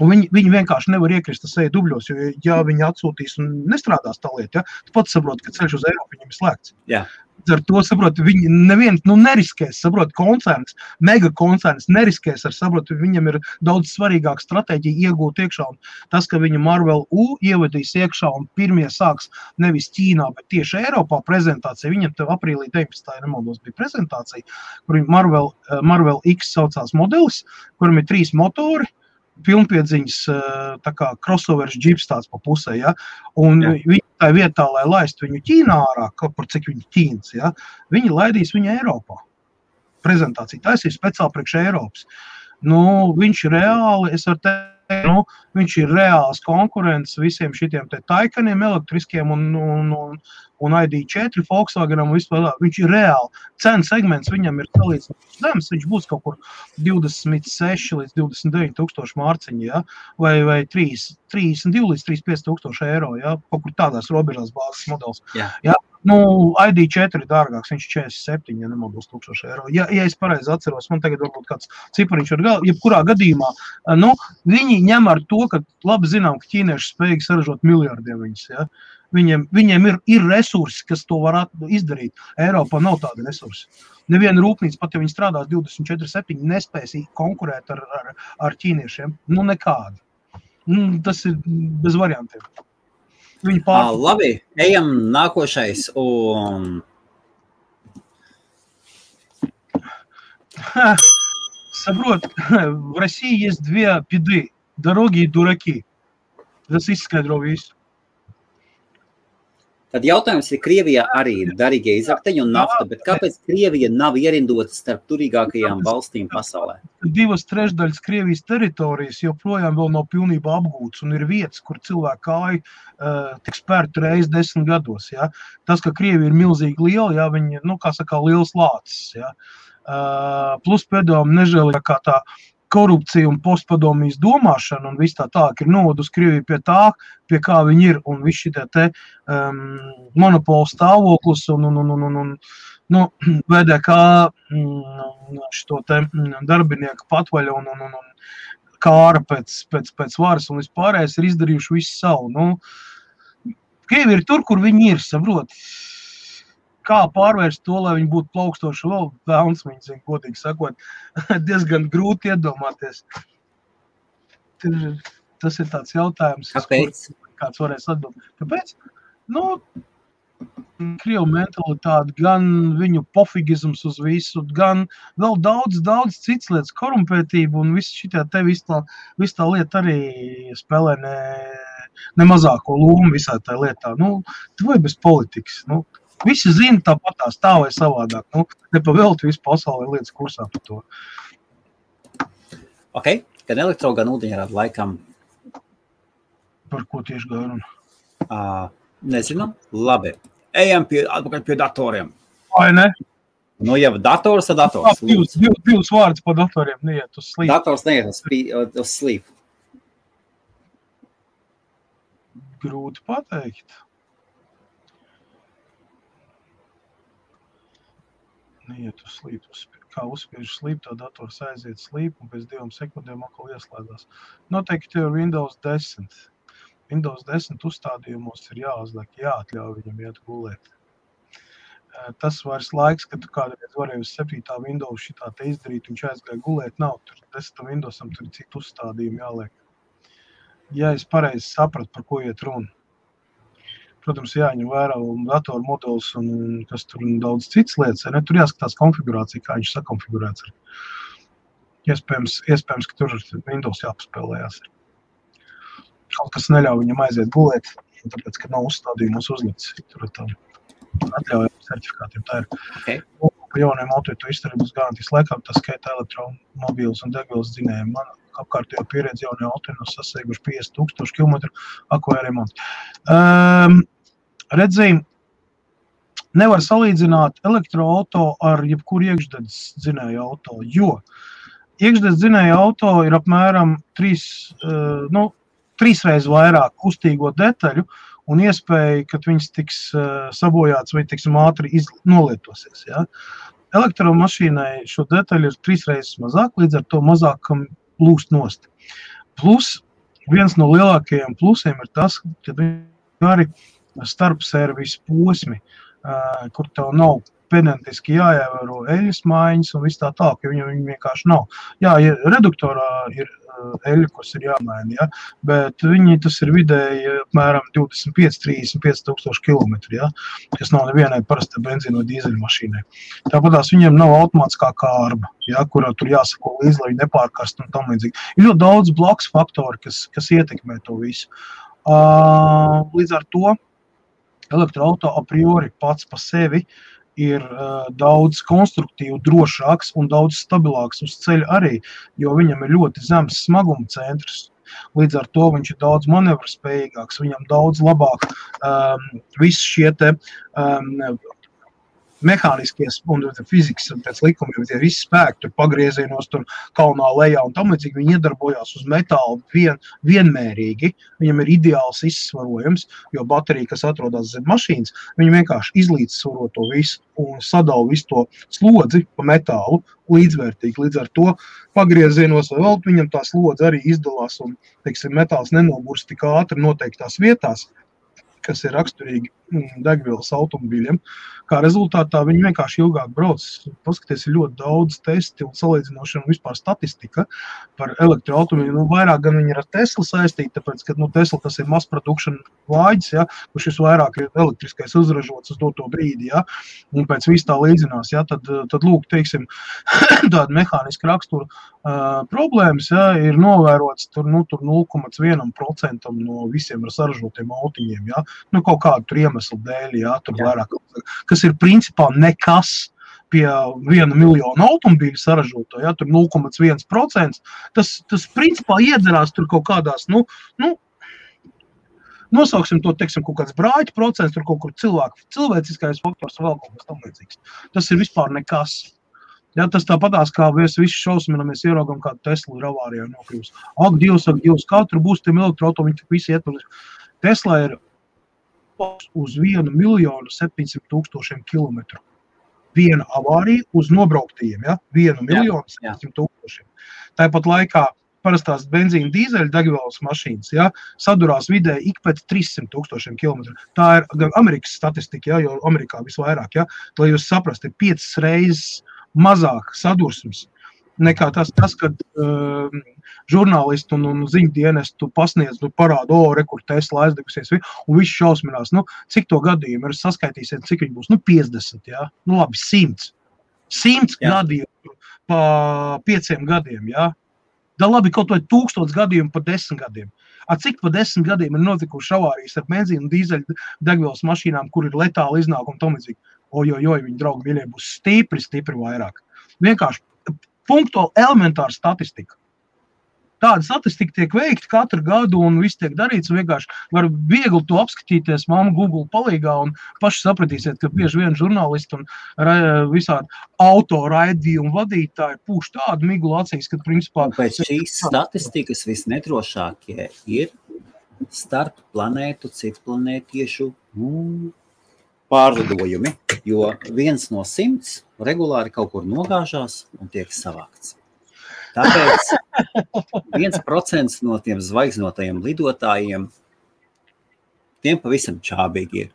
Un viņi vienkārši nevar iekrist seju dubļos, jo, ja viņi atsūtīs un nestrādās tā lieta, ja, tu pats saproti, ka ceļš uz Eiropu viņam ir slēgts. Jā. Ar to, saproti, viņi neviens neriskēs, saproti, koncerns, mega koncerns neriskēs ar, saproti, viņam ir daudz svarīgāka stratēģija iegūt iekšā. Un tas, ka viņa Marvel U ievadīs iekšā un pirmie sāks nevis Ķīnā, bet tieši Eiropā prezentācija, viņam tev aprīlī 19. nemaldos bija prezentācija, kur Marvel X saucās modelis, kuram ir 3 motori, pilnpiedziņas tā kā crossovers džips tāds pa pusē, ja? Un viņi tā vietā, lai laistu viņu Ķīnā ārā, kaut par cik viņi Ķīnas, ja? Viņi laidīs viņu Eiropā. Prezentācija taisīs speciāli priekš Eiropas. Viņš ir reāli, es varu teikt, viņš ir reāls konkurents visiem šitiem te Taycaniem elektriskiem un ID4 Volkswagenam vispār. Viņš ir reāli. Cena segments viņam ir salīdzinoši zems, viņš būs kaut kur 26 līdz 29 tūkstoši mārciņi, ja? vai 32 līdz 35 tūkstoši eiro, ja? Kaut kur tādās robežās bāzes modelis. Jā. Ja? ID4 ir dārgāks, viņš 47, ja nemaldos, tūkstoši eiro. Ja es pareizi atceros, man tagad varbūt kāds cipariņš var jebkurā gadījumā, viņi ņem ar to, ka labi zinām, ka ķīnieši spējīgi saražot miljardiem viņus, ja? Viņiem ir resursi, kas to var izdarīt. Eiropā nav tāda resursi. Neviena rūpnīca, pat ja viņi strādās 24/7, nespēs konkurēt ar ķīniešiem. Nekādi. Tas ir bez variantiem. Labi, ejam nākošais. Saprot, в России есть 2 беды. Дороги и дураки. Tas izskaidro visu. Tad jautājums ir, Krievijā arī ir darīgie izrakteņi un nafta, bet kāpēc Krievija nav ierindota starp turīgākajām valstīm pasaulē? 2/3 Krievijas teritorijas joprojām vēl nav pilnībā apgūtas un ir vietas, kur cilvēku kāju tiek spērta reiz 10 gados. Ja? Tas, ka Krievija ir milzīgi liela, ja, viņi, kā saka, liels lācis. Ja? Plus pēdējām nežēlīgākā tā korupcija un postpadomijas domāšana un viss tā ir novedus Krieviju pie tā, pie kā viņi ir, un viss šitie te monopola stāvoklis un VDK šito te darbinieku patvaļa un kāra pēc varas un vispārējais ir izdarījuši visu savu. Krievi ir tur, kur viņi ir, saprot. Kā pārvērst to, lai viņi būtu plaukstoši vēl vēlns, viņi zina, godīgi sakot, diezgan grūti iedomāties. Tas ir tāds jautājums, kāpēc? Kāds varēs atbildēt. Kāpēc? Krievu mentalitāte, gan viņu pofigisms uz visu, gan vēl daudz cits lietas, korumpētība un viss šitā te viss tā lieta arī spēlē ne mazāko lomu visā tā lietā. Tu vai bez politikas, Visi zina tāpatās tā vai savādāk. Nepavēlti visu pasauli lietas kursā par to. Ok, gan elektro, gan ūdeņrādi laikam. Par ko tieši gāja runa? Nezinām. Labi. Ejam atpakaļ pie datoriem. Vai ne? Ja dators, tad dators. Divas vārdas par datoriem neiet uz slīpu. Dators neiet uz slīpu. Grūti pateikt. Neiet uz slīpu. Kā uzspiež slīpu, tā dators aiziet slīpu un pēc 2 sekundēm atkal ieslēdās. Noteikti ir Windows 10. Windows 10 uzstādījumos ir jāuzliek, jāatļauj viņam iet gulēt. Tas vairs laiks, kad tu kādreiz varēji uz 7. Windows šitā te izdarīt, viņš aizgāja gulēt, nav tur 10. Windowsam tur citu uzstādījumu jāliek. Ja es pareizi sapratu, par ko iet runa. Protams, jāņem vērā datoru modelis un kas tur daudz cits lietas. Tur jāskatās konfigurācija, kā viņš sakonfigurēts. Iespējams, ka tur Windows jāpaspēlējās. Kaut kas neļauj viņam aiziet gulēt, tāpēc, ka nav uzstādījumos uzlikts. Tur atļaujami certifikātiem. Tā ir. Okay. Pa jauniem auto izturības garantijas laikā, tas skaita elektromobīles un degvielas dzinējumi. Man apkārtējo pieredzi jaunie auto sasnieguši 50,000 kilometru ako remonti. Redzēju, nevar salīdzināt elektroauto ar jebkuru iekšdedzes dzinēju auto, jo iekšdedzes dzinēju auto ir apmēram 3 reizes vairāk kustīgo detaļu un iespēja, ka viņas tiks sabojāts vai tiksim ātri nolietosies. Ja? Elektromašīnai šo detaļu ir 3 reizes mazāk, līdz ar to mazāk lūst nost. Plus viens no lielākajiem plusiem ir tas, ka arī starp servisu posmi, kur tev nav pedentiski jāievēro eļas maiņas un viss tā, ka viņi vienkārši nav. Jā, reduktorā ir eļa, kas ir jāmaina, ja? Bet tas ir vidēji apmēram 25-35 tūkstoši kilometri, ja? Kas nav nevienai parastai benzīna vai dīzeļu mašīnai. Tāpatās viņiem nav automātiskā kārba, ja? Kurā tur jāsako līdzi, lai viņi nepārkarst un tam līdzīgi. Ir ļoti daudz blakus faktori, kas ietekmē to visu. Līdz ar to elektroauto a priori pats pa sevi ir daudz konstruktīvi, drošāks un daudz stabilāks uz ceļa arī, jo viņam ir ļoti zems smaguma centrs. Līdz ar to viņš ir daudz manevrspējīgāks, viņam daudz labāk visi šie te mehāniskie un fizikas pēc likumiem, tie visi spēki, tur pagriezienos, tur kalnā lejā un tam līdzīgi, viņi iedarbojās uz metālu vienmērīgi, viņam ir ideāls izsvarojums, jo baterija, kas atrodas zem mašīnas, viņi vienkārši izlīdzsvaro to visu un sadala visu to slodzi pa metālu līdzvērtīgi. Līdz ar to pagriezienos vai vēl viņam tā slodze arī izdalās un, teiksim, metāls nenoburst tik ātri noteiktās vietās, kas ir raksturīgi degvielas automobīļiem. Kā rezultātā viņi vienkārši ilgāk brauc. Paskaties, ir ļoti daudz testi un salīdzinošana un vispār statistika par elektroautomobīļiem. Vairāk gan viņi ir ar Tesla saistīti, tāpēc, ka Tesla tas ir mass production lāģis, ja, kurš vairāk ir elektriskais uzražots uz doto brīdi, ja, un pēc viss tā līdzinās, ja, tad lūk, teiksim, tāda mehāniska rakstura problēmas, ja, ir novērots tur 0,1% no visiem ar saražotiem autiņiem, ja, kaut kādu tur iemeslu dēļ, ja, tur vairāk, kas ir principā nekas pie 1 miljonu automobīļu saražoto, ja, tur 0,1%, tas principā iedzerās tur kaut kādās, nosauksim to, teiksim, kaut kāds brāļu procents, tur kaut kur cilvēciskais faktors vēl kaut kas tam līdzīgs. Tas ir vispār nekas. Ja, tas tāpatās, kā mēs visi šausminamies ieraugam, kādu Tesla ir avārijā nokļūst. Ak, Dievs, kā tur būs tiem elektroauto, viņi tik visi iet. Tesla ir uz 1,700,000 kilometru. Viena avārija uz nobrauktajiem, ja? 1,700,000. Tāpat laikā parastās benzīna dīzeļa degvielas mašīnas, ja, sadurās vidēji ik pēc 300,000 kilometru. Tā ir gan Amerikas statistika, ja, jo Amerikā visvairāk, ja, lai jūs saprast, ir 5 reizes mazāk sadursmes nekā tas, kad žurnālisti un ziņu dienestu pasniedz, parāda, rekur Tesla aizdegusies, un viss šausminās. Cik to gadījumu ir saskaitīsiet, cik viņi būs? 50, jā? Labi, 100. 100 gadījumu pa 5 gadiem, jā? Da labi, kaut vai 1000 gadījumu pa 10 gadiem. Cik pa 10 gadiem ir notikuši avārijas ar benzīnu dīzeļu degvielas mašīnām, kur ir letāli iznākumi tam līdzīgi? Ojojoj, viņi draugi mīļie būs stipri vairāk. Vienkārši punktuāli elementāra statistika. Tāda statistika tiek veikta katru gadu un viss tiek darīts. Vienkārši var viegli to apskatīties mamma Google palīgā un paši sapratīsiet, ka bieži vien žurnālisti un visādi autoraidījumu vadītāji pūš tādu miglu acīs, ka principā... Un pēc šīs statistikas visnedrošākie ir starp planētu, citplanētiešu pārlidojumi, jo 1 no 100 regulāri kaut kur nogāžās un tiek savākts. Tāpēc 1% no tiem zvaigznotajiem lidotājiem tiem pavisam čābīgi ir.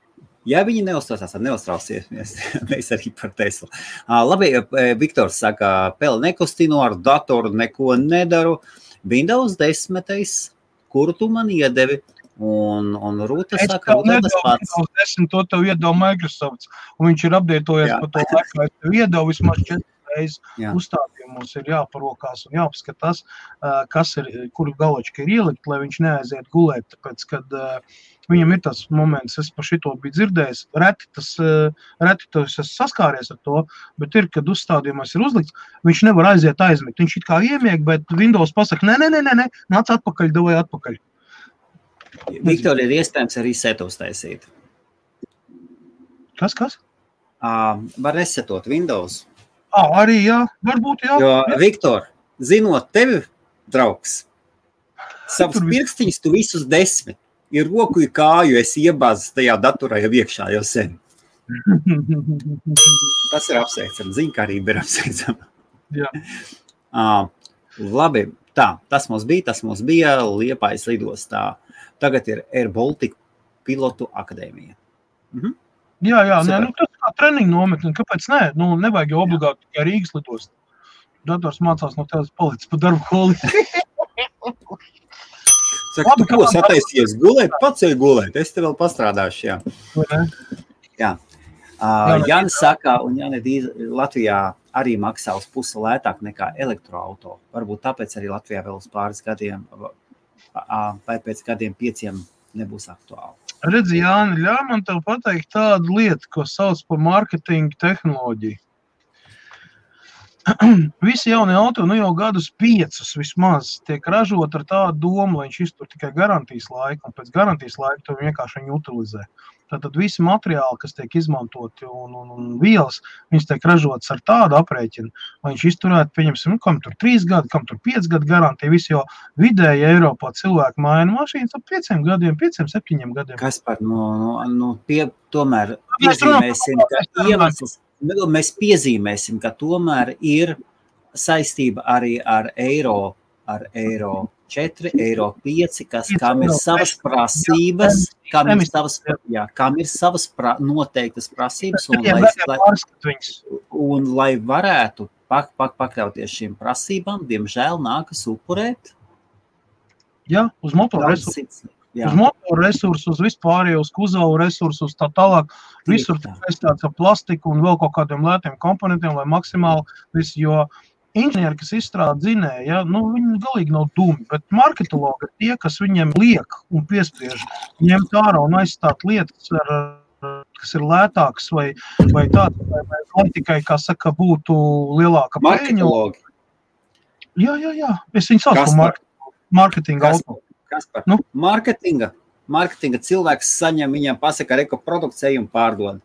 Ja viņi neuztraucās, tad neuztrausies, mēs arī par Teslu. Labi, Viktors saka, Pele nekustinu, ar datoru neko nedaru. Windows 10, kuru tu man iedevi? Un Rūta saka, tas pats. Windows 10 to tev iedeva Microsoft, un viņš ir updatējies pa to laiku, es tev iedeva vismaz 4 reizes uzstādījumos ir jāparokās un jāpaskatās, kas ir, kuru galočka ir ielikt, lai viņš neaiziet gulēt, tāpēc, kad viņam ir tas moments, es par šito biju dzirdējis, reti tas es saskāries ar to, bet ir, kad uzstādījumos ir uzlikts, viņš nevar aiziet aizmigt, viņš it kā iemieg, bet Windows pasaka, nē, nāc atpakaļ, davai atpakaļ. Viktor, ir iespējams arī setos taisīt. Kas? Var resetot Windows. Arī jā, varbūt jā. Jo, Viktor, zinot tevi, draugs, savus pirkstiņus tu visus 10, ir roku, ir kāju, esi iebāzis tajā datorā jau iekšā jau sen. Tas ir apsveicam, ziņkārība ir apsveicama. Jā. Labi, Tā, tas mums bija Liepājas lidostā. Tagad ir Air Baltica pilotu akadēmija. Mhm. Jā, tas kā treniņu nometni, kāpēc ne? Nevajag jau obligāti tikai Rīgas lidost. Dators mācās no tevis palicis pa darbu holi. Saka, tu ko sataisies gulēt? Pats ej gulēt, es te vēl pastrādāšu, jā. Jā. Jānis saka, un Latvijā arī maksā uz pusi lētāk nekā elektroauto. Varbūt tāpēc arī Latvijā vēl uz pāris gadiem, vai pēc gadiem 5 nebūs aktuāli. Redzi, Jāni, ļauj man tev pateikt tādu lietu, ko sauc par marketinga tehnoloģiju. Visi jaunie auto, jau gadus 5 vismaz tiek ražot ar tādu domu, lai viņš iztur tikai garantijas laiku, un pēc garantijas laika to vienkārši viņi utilizē. Tātad visi materiāli, kas tiek izmantoti un vielas, viņas tiek ražotas ar tādu aprēķinu, lai viņš izturētu, pieņemsim, kam tur 3 gadi, kam tur 5 gadu garantija, visi jau vidēji Eiropā cilvēki maina mašīnas ap 5 gadiem, 5-7 gadiem. Kas par, tomēr piezīmēsim, ka iemesls, mēs piezīmēsim, ka tomēr ir saistība arī ar eiro 4, eiro 5, kam ir savas prasības, kam ir savas noteiktas prasības, un lai varētu pakļauties šīm prasībām, diemžēl nākas upurēt. Jā, uz motoru resursu. Uz motoru resursu, uz vispārējo, uz kuzavu resursu, uz tā tālāk. Visur saistīts ar plastiku un vēl kaut kādiem lētiem komponentiem, lai maksimāli visu, jo inženieri, kas izstrādā dzinēju, viņi galīgi nav dumi, bet marketologi ir tie, kas viņiem liek un piespiež ņemt ārā un aizstāt lietas, kas ir lētākas vai tādas, lai tikai, kā saka, būtu lielāka peļņa. Marketologi? Jā. Es viņu saucu par marketinga auto. Kas par? Marketinga cilvēks saņem, viņam pasaka, reko produkciju un pārdod.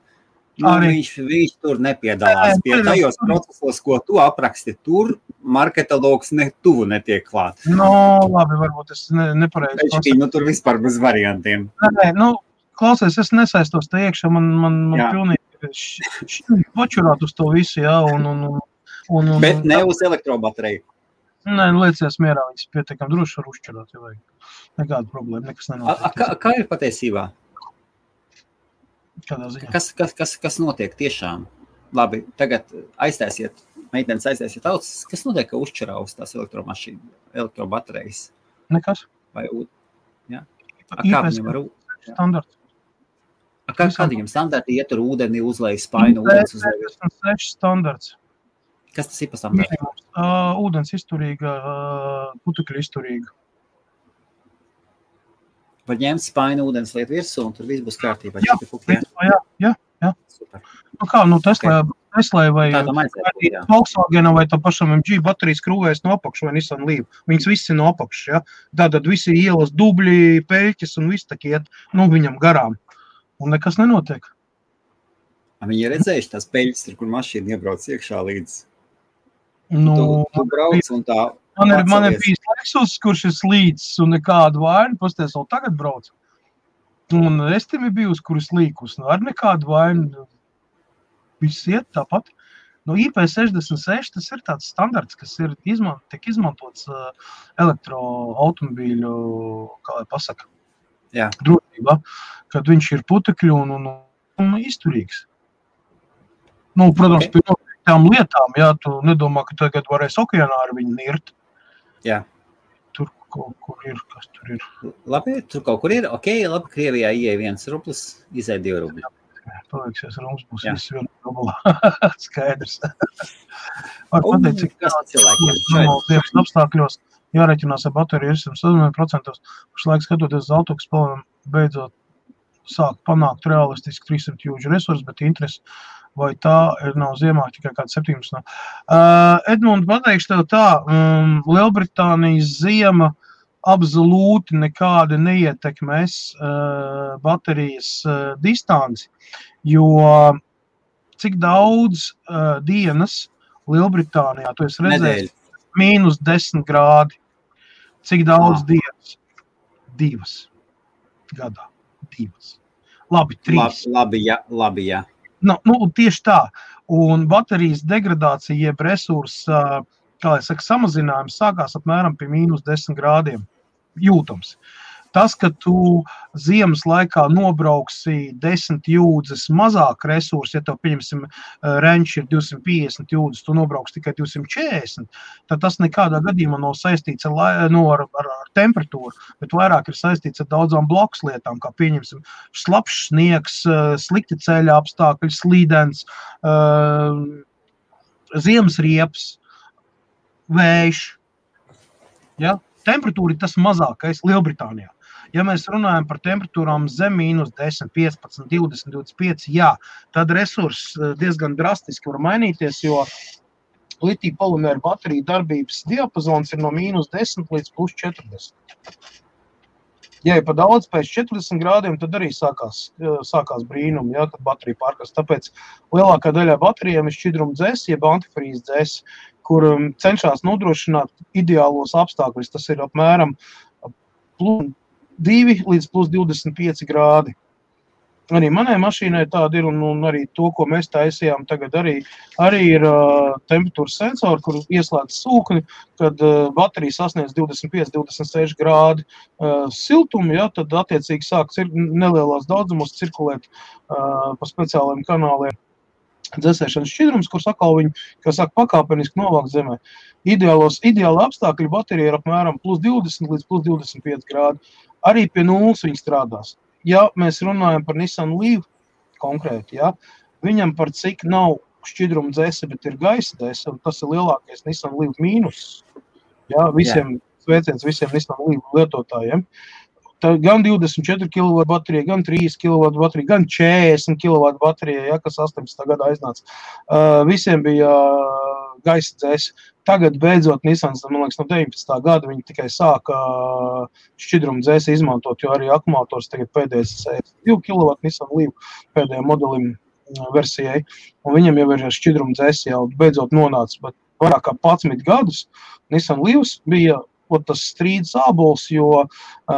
Viņš tur nepiedalās pie tajos procesos, ko tu apraksti. Tur marketologs tuvu netiek klāt. Labi, varbūt es nepareizi. Tur vispār bez variantiem. Klausies, es nesaistos te iekšā, man pilnīgi počurāt uz to visu, jā. Bet ne uz elektrobateriju. Nē, liecies mierā, viņas pietiekam droši var uzšķirāt, ja vajag. Nekāda problēma, nekas nenotiek. Kā ir patiesībā? Kādā ziņā? Kas notiek tiešām? Labi, tagad meitenes aiztaisiet ausis. Kas notiek, ka uzšķirā uz tās elektrobaterijas? Nekas. Vai jā? Kā viņam var standarts. Kādi viņam standarti ietur ūdeni, uzlej spainu, ūdens uzlej? 6 standarts. Kas tas ir pa standartu? Ūdens izturīga, putekļu izturīga. Var ņemt spainu ūdens liet virsū un tur viss būs kārtībā. Jā. Super. Teslai vai Volkswagenam vai tam pašam MG baterijas krūvēs no apakšu vai Nissan Leaf. Viņas visi no apakšu, ja? Tātad visi ielas dubļi, peļķis un viss tak iet, viņam garām. Un nekas nenotiek. Viņi ir redzējuši tās peļķis, kur mašīna iebrauc iekšā līdz. Tu brauc un tā. Man ir bijis Lexus, kurš ir slīdis un nekādu vainu, pasties vēl tagad brauc. Un es tim ir bijusi, kur ir slīkus, ar nekādu vainu. Viss iet tāpat. IP66 tas ir tāds standarts, kas tiek izmantots elektroautomobīļu, kā lai pasaka, drošībā, kad viņš ir putekļu un izturīgs. Protams, pie tām lietām, tu nedomā, ka tagad varēs okeānā ar viņu nirt. Jā. Tur kaut kur ir, kas tur ir. Labi, tur kaut kur ir. Labi, Krievijā ieeja 1 rublis, izēja 2 rubļi. Palieksies, rums būs viss 1 rublā. Skaidrs. Var pateikt, cik cilvēkiem apstākļos jārēķinās ar bateriju 100%. Pašlaik skatoties uz auto, kas beidzot sāk panākt realistiski 300 jūdžu resursus, bet interesi vai tā nav ziemā tikai kāds 17. Edmund, pateikšu tev tā, Lielbritānijas ziema absolūti nekādi neietekmēs baterijas distanci, jo cik daudz dienas Lielbritānijā, tu esi redzējis, -10 grādi, cik daudz dienas? 2 gadā, 2. Labi, 3. Labi, jā. Tieši tā. Un baterijas degradācija, jeb resursa kā es saku, samazinājums sākās apmēram pie -10 grādiem jūtams. Tas, ka tu ziemas laikā nobrauksi 10 jūdzes mazāk resursi, ja tev, pieņemsim, renči ir 250 jūdzes, tu nobrauks tikai 240, tad tas nekādā gadījumā nav saistīts ar temperatūru, bet vairāk ir saistīts ar daudzām blakus lietām, kā pieņemsim slapšs sniegs, slikti ceļa apstākļi, slīdens, ziemas riepas, vējš. Ja? Temperatūra ir tas mazākais Lielbritānijā. Ja mēs runājam par temperatūrām zem -10, 15, 20, 25, jā, tad resurss diezgan drastiski var mainīties, jo litija polimēra bateriju darbības diapazons ir no -10 līdz +40. Ja ir pa daudz pēc 40 grādiem, tad arī sākās brīnumi, ja, kad baterija pārkast. Tāpēc lielākā daļā baterijām ir šķidruma dzēs, jeb antifrīz dzēs, kur cenšas nodrošināt ideālos apstākļus. Tas ir apmēram +2 līdz +25 grādi. Arī manai mašīnai tāda ir, un arī to, ko mēs taisījām tagad, arī ir temperatūras sensori, kur ieslēdz sūkni, kad baterija sasniedz 25-26 grādi siltumu, ja, tad attiecīgi sāk nelielās daudzumos cirkulēt pa speciāliem kanāliem dzēsēšanas šķidrums, kur sakal viņi, kā saka, pakāpeniski novāk zemē. Ideāli apstākļi baterija ir apmēram +20 līdz +25 grādi. Arī pie nulles viņi strādās. Ja mēs runājam par Nissan Leaf konkrēti, ja, viņam par cik nav šķidruma dzēse, bet ir gaisa dzēse, un tas ir lielākais Nissan Leaf mīnus. Ja, sveiciens visiem Nissan Leaf lietotājiem. Tā gan 24 kW baterija, gan 3 kW baterija, gan 40 kW baterija, ja, kas 18. gadā aiznāca. Visiem bija gaisa dzēse. Tagad beidzot Nissans, man liekas, no 19. gada viņi tikai sāka šķidrumu dzēsi izmantot, jo arī akumulators tagad pēdējais 2 kW Nissan Leaf pēdējiem modelim versijai, un viņam jau ir šķidrumu dzēsi jau beidzot nonāca, bet vairāk kā 11 gadus Nissan Leafs bija tas strīds ābols, jo,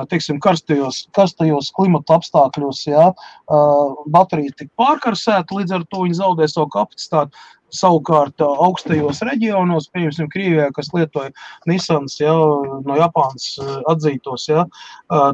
teiksim, karstajos klimata apstākļos, jā, baterija tika pārkarsēta, līdz ar to viņi zaudē savu kapacitāti. Savukārt augstajos reģionos, pieņemsim Krievijā, kas lietoja Nissans, ja, no Japānas atzītos, ja,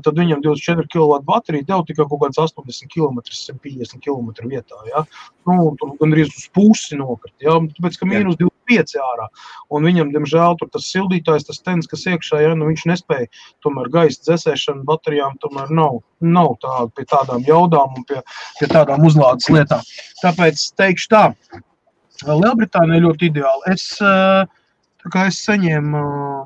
tad viņam 24 kW baterija deva tikai kaut kāds 80 km, 150 km vietā. Ja. Tur gandrīz uz pusi nokrit, ja, tāpēc, ka -25 ārā. Un viņam, diemžēl, tur tas sildītājs, tas tens, kas iekšā, ja, viņš nespēja, tomēr gaisa dzēsēšana baterijām tomēr nav tāda pie tādām jaudām un pie tādām uzlādes lietām. Tāpēc teikšu tā, Lielbritānija ļoti ideāli. Es saņēmu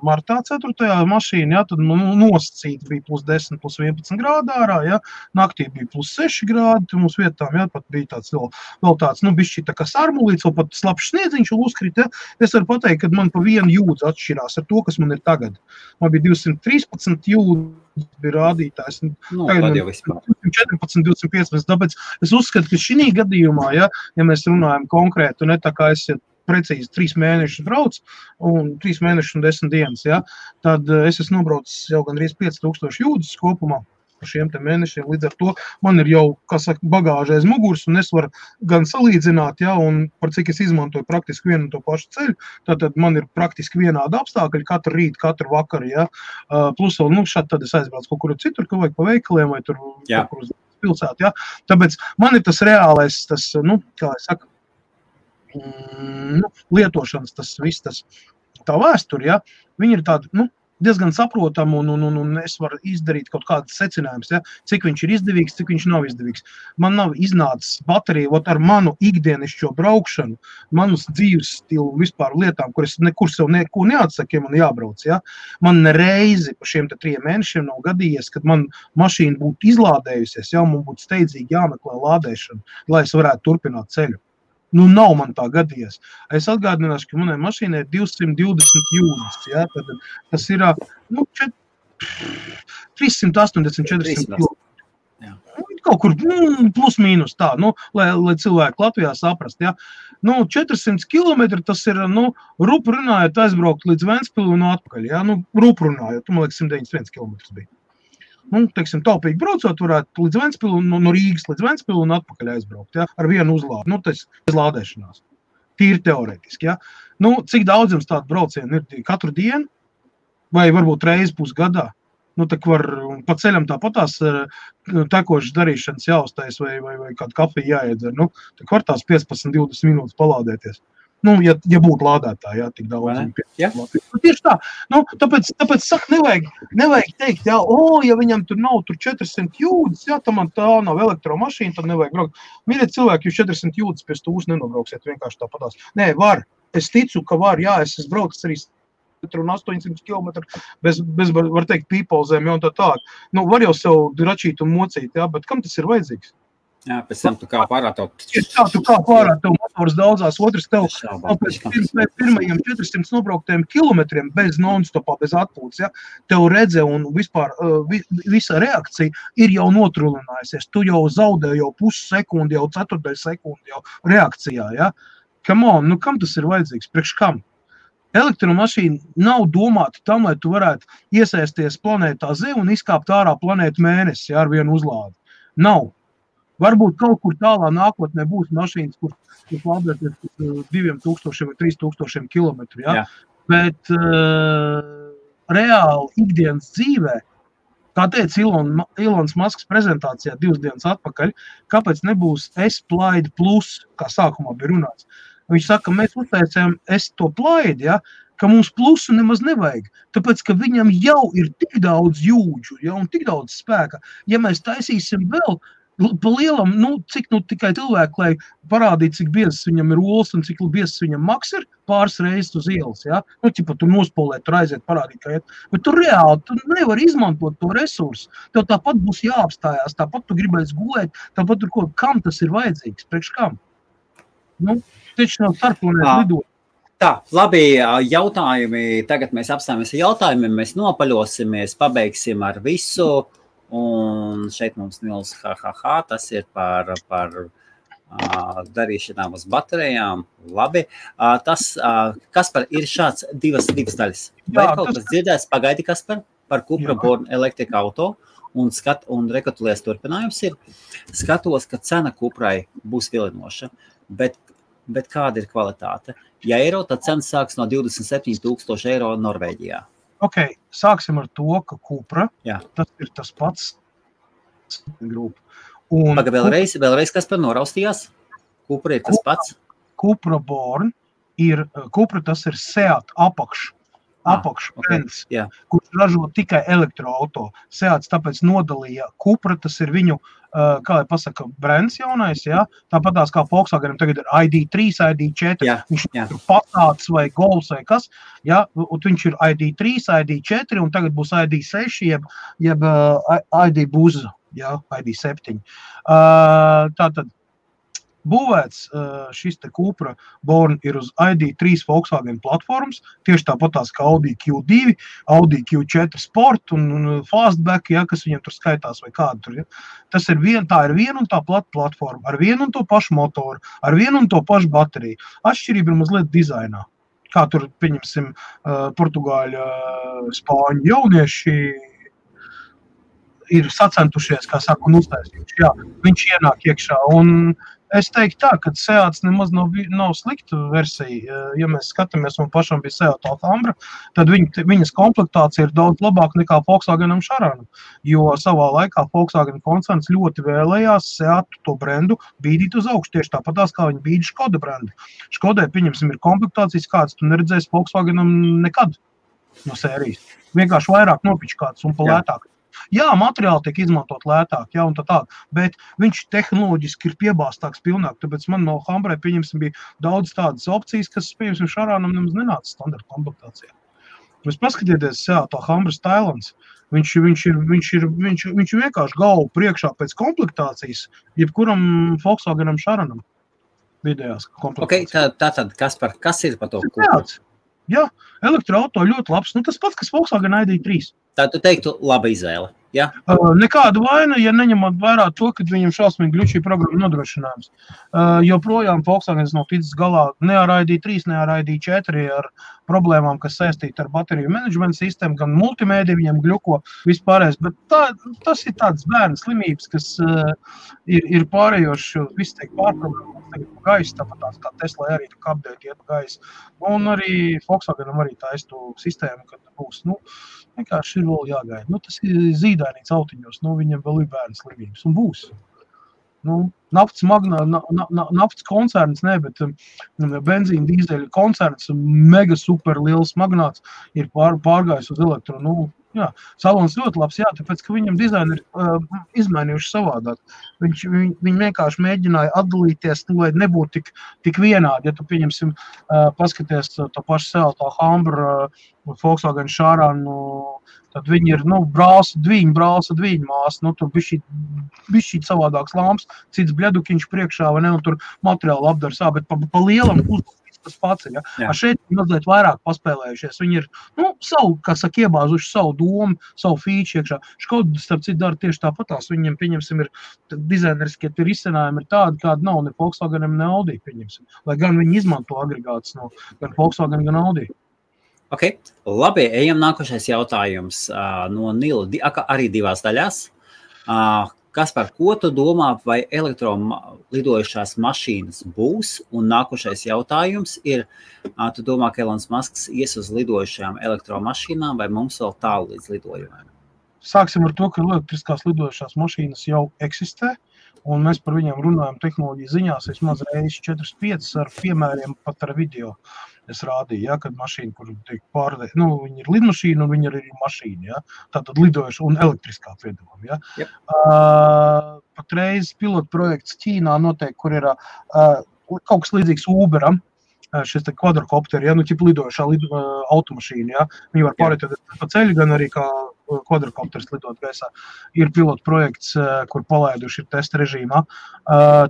martā 4. mašīnu, ja, tad nosacīti bija +10, +11 grādi ārā, ja, naktī bija +6 grādi, mums vietām, ja, pat bija tāds vēl tāds, bišķi tā kā sarmulīts, vēl pat slapšs sniedziņš uzkrit, ja. Es varu pateikt, ka man pa vienu jūdzi atšķirās ar to, kas man ir tagad. Man bija 213 jūdzi bija rādītājs. Tagad jau vispār. 14, 215, tāpēc es uzskatu, ka šī gadījumā, ja mēs runājam konkrēti, ne tā kā es precīzi 3 mēnešus brauc, un 3 mēnešus un 10 dienas, ja, tad es esmu nobraucis jau gandrīz 5000 jūdzes kopumā par šiem te mēnešiem. Līdz ar to man ir jau, kā saka, bagāža aiz muguras, un es varu gan salīdzināt, ja, un par cik es izmantoju praktiski vienu un to pašu ceļu, tad man ir praktiski vienādi apstākļi katru rītu, katru vakaru, ja. Plus vēl, šādi tad es aizbraucu kaut kur citur, ka vajag pa veikaliem vai tur kaut kur uz pilsētu, ja. Tāpēc man ir tas reālais, tas, kā es saku, lietošanas, tas viss, tā vēsture, ja, viņi ir tādi, diezgan saprotami, un es varu izdarīt kaut kādas secinājumus, ja, cik viņš ir izdevīgs, cik viņš nav izdevīgs. Man nav iznācis baterija, ar manu ikdienišķo braukšanu, manas dzīves stilu vispār lietām, kur es nekur sev neko neatsaku, ja man jābrauc, ja. Man nereizi pa šiem 3 mēnešiem nav gadījies, kad man mašīna būtu izlādējusies, ja, man būtu steidzīgi jāmeklē lādēšana, lai es varētu turpināt ceļu. Nav man tā gadījies. Es atgādināšu, ka manai mašīnai ir 220 jūdzes, ja, tad tas ir 380-400 km. Kaut kur plus mīnus tā, lai cilvēki Latvijā saprast, ja. 400 km tas ir, rupu runājot aizbraukt līdz Ventspili un atpakaļ, ja, rupu runājot, man liekas 191 km bija. Teiksim, taupīgi braucot, varētu līdz Ventspili, no Rīgas līdz Ventspili un atpakaļ aizbraukt, ja, ar vienu uzlādi, tas ir lādēšanās. tīri teorētiski, ja? Nu, cik daudz jums tādu braucienu ir katru dienu, vai varbūt reizi pusgadā? Nu, tak var pa ceļam tāpatās tekošas darīšanas jāuztais vai kādu kafiju jāiedzer. Nu, tak var tās 15-20 minūtes palādēties. Nu, ja būtu lādētāji, jā, tik daudz. Ja? Nu, tieši tā. Nu, tāpēc saka, nevajag teikt, jā, ja viņam tur nav 400 jūdzes, jā, tā man tā nav elektromašīna, tad nevajag braukt. Mīļie cilvēki, jūs 400 jūdzes pie stūs nenobrauksiet, vienkārši tāpatās. Nē, var. Es ticu, ka var, jā, es braucu arī 800 km bez var teikt, pīpolzēm, jau un tā tālāk. Nu, var jau sev dračīt un mocīt, jā, bet kam tas ir vajadzīgs? Jā, pēc tam tu kā pārā tev. Tu kā pārā tev motors daudzās, otrs tev pēc pirmajiem 400 nobrauktajiem kilometriem bez non-stopā, bez atpūtas, ja, tev redze un vispār visa reakcija ir jau notrulinājusies. Tu jau zaudē jau pussekundi, jau ceturtdaļ sekundi jau reakcijā, ja. Come on, nu kam tas ir vajadzīgs? Priekš kam? Elektromašīna nav domāta tam, lai tu varētu iesaisties planētā Zeme un izkāpt ārā planētu Mēnesi, ja, ar vienu uzlādi. Nav. Varbūt kaut kur tālā nākotnē būs mašīnas, kur lādēties 2000 vai 3000 kilometru, ja? Bet reāli ikdienas dzīvē, kā teica Ilons Masks prezentācijā 2 dienas atpakaļ, kāpēc nebūs S-Plaid Plus, kā sākumā bija runāts. Viņš saka, mēs uztaicējam to plaidi, ja, ka mums plusu nemaz nevajag, tāpēc, ka viņam jau ir tik daudz jūdžu, ja, un tik daudz spēka. Ja mēs taisīsim vēl pa lielam, cik tikai cilvēku, lai parādītu, cik biezs viņam ir olas un cik biezs viņam maks ir pāris reizes uz ielas, ja? Nu, ķipa, tu nospolēt, tur aiziet, parādīt, kā iet. Bet tu reāli, tu nevar izmantot to resursu. Tev tāpat būs jāapstājās, tāpat tu gribēs gulēt, tāpat tur ko, kam tas ir vajadzīgs, priekš kam? Nu, taču nav starplanētu lidot. Tā, labi, jautājumi, tagad mēs apstājamies ar jautājumiem, mēs nopaļosimies, pabeigsim ar visu. Un šeit mums Nils tas ir par darīšanām uz baterijām. Labi. Kaspar, ir šāds divas daļas. Vai kaut kas dzirdēs, pagaidi, Kaspar, par Cupra Born Electric Auto un rekapitulēs turpinājums ir. Skatos, ka cena Cuprai būs vilinoša, bet kāda ir kvalitāte? Ja eiro, tad cena sāks no 27,000 eiro Norvēģijā. Ok, sāksim ar to, ka Cupra, tas ir tas pats grupa. Paga vēlreiz, kas par noraustījās? Cupra ir tas pats? Cupra Born ir, Cupra tas ir Seat apakšbrends, kurš ražo tikai elektroauto. Seats tāpēc nodalīja Cupra, tas ir viņu, kā lai pasaka, brends jaunais, ja? Tāpatās kā Volkswagenam tagad ir ID3, ID4, viņš ir Passats vai Golfs vai kas, ja? Un viņš ir ID3, ID4 un tagad būs ID6, jeb ID Buza, ja? ID7. Tātad būvēts šis te Cupra Born ir uz ID3 Volkswagen platformas, tieši tāpatās kā Audi Q2, Audi Q4 Sport un Fastback, ja, kas viņiem tur skaitās vai kādu tur. Ja. Tā ir viena un tā platforma, ar vienu un to pašu motoru, ar vienu un to pašu bateriju. Atšķirība ir mazliet dizainā. Kā tur, pieņemsim, portugāļu, spāņu jaunieši ir sacentušies, kā saka, un uztaisījuši. Jā, viņš ienāk iekšā un es teiktu tā, ka Seats nemaz nav slikta versija. Ja mēs skatāmies, un pašam bija Seat Alhambra, tad viņas komplektācija ir daudz labāka nekā Volkswagenam Charanam, jo savā laikā Volkswagen koncerns ļoti vēlējās Seatu to brendu bīdīt uz augšu, tieši tāpatās, kā viņi bīdi Škoda brendu. Škodai, pieņemsim, ir komplektācijas, kāds tu neredzēsi Volkswagenam nekad no sērijas. Vienkārši vairāk nopičkāts un palētāk. Jā, materiāli tiek izmantot lētāk, jā, un tā, bet viņš tehnoloģiski ir piebāstāks pilnāk, tāpēc man no Alhambrai, pieņemsim, bija daudz tādas opcijas, kas, pieņemsim, Charanam nemaz nenāca standarta komplektācijā. Jūs paskatieties, Alhambra Stylans, viņš vienkārši galvu priekšā pēc komplektācijas, jebkuram Volkswagenam Charanam vidējās komplektācijas. Ok, tātad, kas ir par to? Jā, elektroauto ļoti labs, tas pats, kas Volkswagen ID3. Tā tu teiktu laba izvēle, ja? Nekāda vaina, ja neņemot vērā to, ka viņam šausmīgi gļučī programma nodrošinājums. Joprojām Volkswagens nav ticis galā ne ar ID3, ne ar ID4, ar problēmām, kas saistīta ar bateriju menedžmenta sistēmu, gan multimēdija viņam gļuko vispārējais, bet tas ir tāds bērnu slimības, kas ir pārējoši, viss teik pārprogrammas. tagad pa gaisu, tāpat kā Tesla arī update iet pa gaisu. Un arī Volkswagenam arī taistu sistēmu, kad būs, vienkārši ir vēl jāgaida. Tas ir zīdainīts autiņos, viņam vēl ir bērnu slimības un būs. Naftas koncerns, bet benzīna dīzeļa koncerns, mega super liels magnāts ir pārgājis uz elektro. Salons ļoti labs, tāpēc, ka viņam dizaini ir izmainījuši savādāk. Viņi vienkārši mēģināja atdalīties, lai nebūtu tik vienādi. Ja tu, pieņemsim, paskaties to pašu Celta Humber, Volkswagen Šārānu, tad viņi ir, brālsa dviņa māsa, tur bišķīt savādāks lamps, cits bļedukiņš priekšā, vai ne, un tur materiāli apdars, bet pa lielam uzlūk. Tas pats ir, Šeit mazliet vairāk paspēlējušies. Viņi ir, savu, kā saka, iebāzuši savu domu, savu fīču iekšā. Škoda, starp citu, dara tieši tāpatās. Viņiem, pieņemsim, ir dizaineriskie risinājumi ir tādi, kādi nav ne Volkswagenam, ne Audi, pieņemsim. Lai gan viņi izmanto agregātus no gan Volkswagen, gan Audi. Ok, labi, ejam nākošais jautājums no Nila, arī divās daļās. Kaspar, ko tu domā, vai elektrolidojušās mašīnas būs? Un nākošais jautājums ir, tu domā, ka Elons Musks ies uz lidojušajām elektromašīnām, vai mums vēl tālu līdz lidojumiem? Sāksim ar to, ka elektriskās lidojušās mašīnas jau eksistē, un mēs par viņiem runājam tehnoloģiju ziņās, vismaz reizes 4-5 ar piemēriem, pat ar video. Es rādīju, kad mašīna, kur tiek pārdēta, viņi ir lidmašīna un viņi ir mašīna, tātad lidojuši un elektriskā piedalām, Yep. Patreiz pilotu projekts Ķīnā notiek, kur ir kaut kas līdzīgs Uberam, šis te kvadrokopteri, ķip lidojušā automašīna, viņi var pārēt pa ceļu, gan arī kā kvadrokopteris lidot gaisā. Ir pilotu projekts, kur palaiduši ir testa režīmā.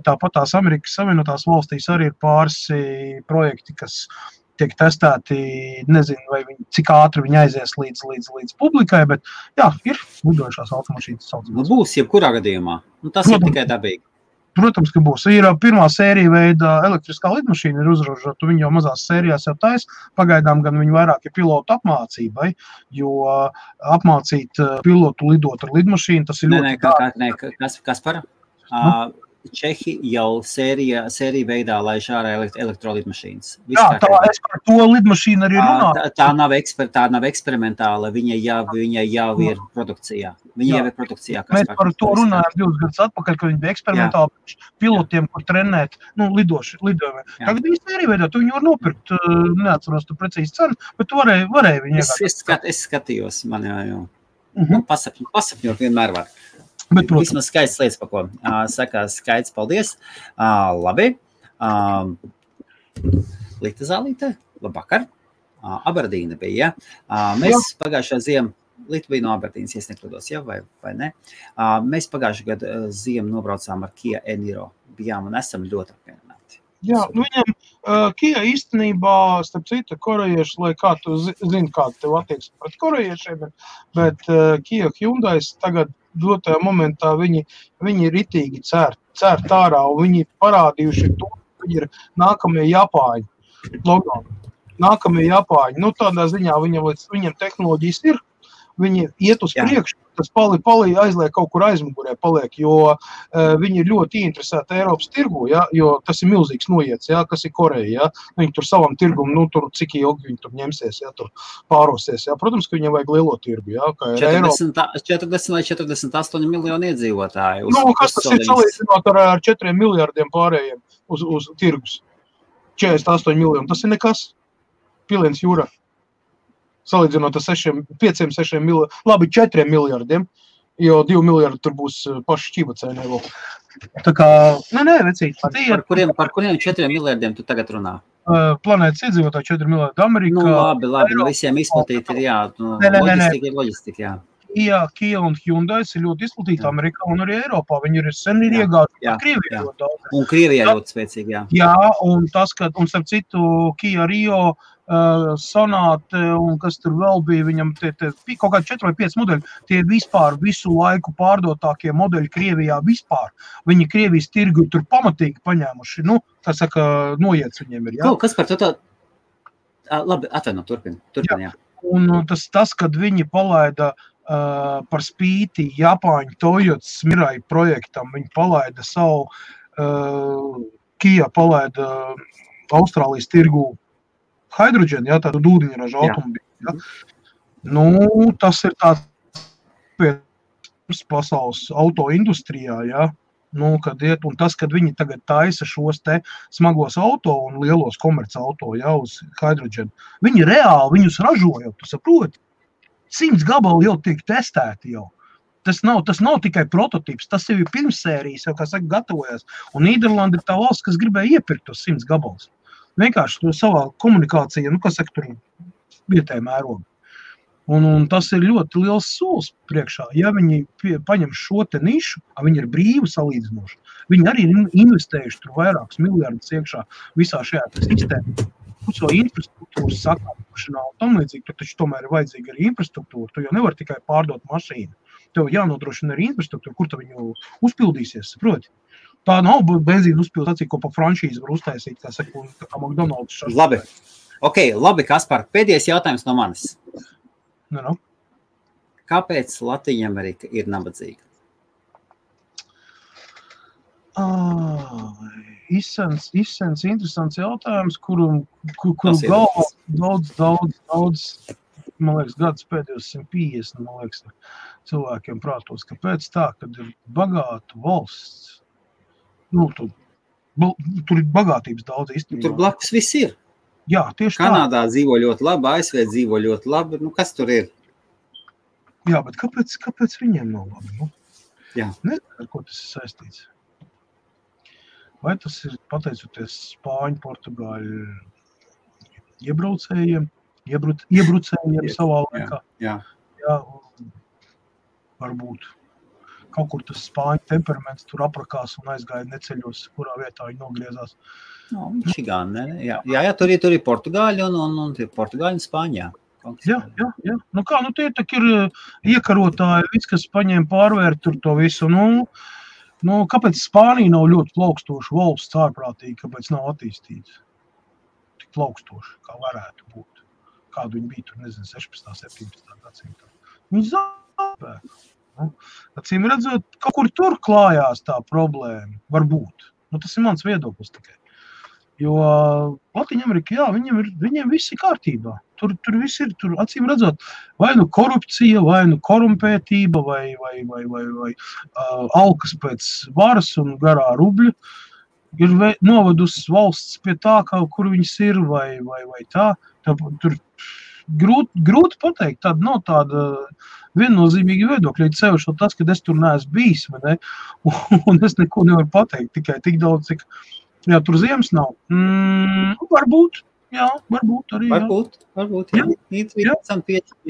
Tāpat tās Amerikas Savienotās valstīs arī ir pāris projekti, kas tiek testēti, nezinu, cik ātri viņi aizies līdz publikai, bet ir lidojušās automašīnas saucamās. Būs jebkurā gadījumā. Tas ir tikai dabīgi. Protams, ka būs. Ir pirmā sērija veida elektriskā lidmašīna ir uzražota, viņi jau mazās sērijās jau taisa. Pagaidām gan viņi vairāk ir pilotu apmācībai, jo apmācīt pilotu lidot ar lidmašīnu, tas ir ļoti Kaspar? Čehi jau sērija veidā laiž ārā elektrolidmašīnas. Es par to lidmašīnu arī runāju. Tā nav eksperimentāla, viņa jau ir produkcijā. Viņa jau ir produkcijā. Mēs par to runājām 2 gadus atpakaļ, kad viņi bija eksperimentāli pilotiem, kur trenēt lidojumiem. Tagad viņi sērija veidā, tu viņu var nopirkt, neatceros tu precīzi cenu, bet tu varēji viņu iegādāt. Es skatījos, man jau pasapņot vienmēr var. Bet, vismaz skaists lietas, pa ko saka skaits, paldies. Labi. Lita Zālīte, labvakar. Aberdīna bija, Mēs pagājušā ziemu, Lita bija no Aberdīnas, ja nekļūdos, vai ne? Mēs pagājušā gadu ziemu nobraucām ar Kia Eniro. Bijām un esam ļoti apmierināti. Viņam Kia īstenībā, starp citu, korejieši, lai kā tu zini, kāda tev attieksme pret korejiešiem, bet Kia Hyundais tagad dotajā momentā viņi ritīgi cērt ārā, un viņi parādījuši to, ka viņi ir nākamie Japāņi. Nākamie Japāņi. Tādā ziņā viņam tehnoloģijas ir, viņi iet uz priekšu, tas palī aizliek kaut kur aizmugurē paliek, jo viņi ir ļoti interesēti Eiropas tirgu, jo tas ir milzīgs noiets, kas ir Koreja, Viņi tur savam tirgumu, tur cik ilgi viņi tur ņemsies, tur pārosies, Protams, ka viņam vajag lielo tirgu, kā ir 40 vai 48 miljoni iedzīvotāji. Kas tas ir salīdzinot ar 4 miljardiem pārējiem uz tirgus? 48 miljoni, tas ir nekas. Piliens jūrā. Salīdzinot ar 5-6 miljardiem, labi, 4 miljardiem, jo 2 miljardi tur būs paši šķībacēnē vēl. Tā kā, vecīt. Par kuriem 4 miljardiem tu tagad runā? Planētas iedzīvotāji 4 miljardi Amerikā. Labi, visiem izplatīti ir, loģistika, Kia un Hyundais ir ļoti izplatīti Amerikā un arī Eiropā. Viņi ir sen iegājuši Krievijā ļoti daudz. Un Krievijā ļoti spēcīgi, un tas, ka, un starp citu, Kia Rio, Sonate un kas tur vēl bija, viņam kaut kādi 4 vai 5 modeļi, tie vispār visu laiku pārdotākie modeļi Krievijā vispār. Viņi Krievijas tirgu tur pamatīgi paņēmuši, tā saka, noiets viņiem ir, Kas par to tā? Labi, atvaino, turpin, jā. Un tas, kad viņi palaida par spīti Japāņu Toyotas Mirai projektam, viņi palaida savu Kia palaida Austrālijas tirgu hidroģenu, ja, tādu ūdeņraža automobīļu. Ja. Nu, tas ir tāds pasaules autoindustrijā, ja. Nu, kad iet, un tas, kad viņi tagad taisa šos te smagos auto un lielos komerc auto, ja, uz hidroģenu, viņi reāli viņus ražo jau, tu saproti? 100 gabali jau tiek testēti jau. Tas nav tikai prototips, tas jau ir pirmsērijas, jau, kā saka, gatavojas. Un Nīderlanda ir tā valsts, kas gribēja iepirkt tos 100 gabalus. Vienkārši to savā komunikācijā, nu, kas saka, tur vietēja mērogu. Un tas ir ļoti liels solis priekšā. Ja viņi paņem šo te nišu, viņi ir brīvi salīdzinoši. Viņi arī ir investējuši tur vairākus miljardus iekšā visā šajā sistēmā. Šo infrastruktūras sakārtošanā un tam līdzīgi, tur taču tomēr ir vajadzīga arī infrastruktūra. Tu jau nevar tikai pārdot mašīnu. Tev jānodrošina arī infrastruktūra, kur tu viņu uzpildīsies, saproti? Tā nav benzīna uzpildācija, ko pa franšīzi var uztaisīt, kā saka, kā McDonald's. Labi. Labi, Kaspar, pēdējais jautājums no manis. Nu. Kāpēc Latvija Amerika ir nabadzīga? Izsens interesants jautājums, kuru galvā daudz, man liekas, gadus pēdējos 150, man liekas, cilvēkiem prātos, kāpēc tā, kad ir bagāta valsts, nu, tur ir bagātības daudz īstenībā. Tur blakus viss ir. Jā, tieši Kanādā dzīvo ļoti labi, ASV dzīvo ļoti labi. Nu, kas tur ir? Jā, bet kāpēc viņiem nav labi? Nu? Jā. Nezinu, ar ko tas ir saistīts. Vai tas ir pateicoties Spāņu, Portugāļu iebrucējiem savā laikā? Jā. Jā, varbūt. Kaut kur tas Spāņu temperaments tur aprakās un aizgāja neceļos, kurā vietā viņi nogriezās. No, Michigan, ne? Jā, tur ir Portugāļi un Portugāļi un Spāņā. Jā. Nu kā, nu tie tak ir iekarotāji, viss, kas paņēma pārvērt tur to visu. Nu, kāpēc Spānija nav ļoti plaukstoša valsts ārprātīgi, kāpēc nav attīstīts? Tik plaukstoša, kā varētu būt. Kādu viņi bija tur, nezinu, 16. 17. gadsimtā. Viņi zaudēja. Acīm redzot, kaut kur tur klājās tā problēma, varbūt. Nu, tas ir mans viedoklis tikai. Jo Latvija Amerika, jā, viņiem viss ir kārtībā. Tur viss ir, tur acīm redzot, vai nu korupcija, vai nu korumpētība, vai alkas pēc varas un garā rubļa ir novedusi valsts pie tā, kur viņas ir, vai tā. Tur grūti pateikt, tāda nav tāda viennozīmīga viedokļa, sevišķi tas, ka es tur neesmu bijis, vai ne? Un es neko nevaru pateikt, tikai tik daudz, cik jā, tur ziemas nav. Varbūt arī, Varbūt, jā.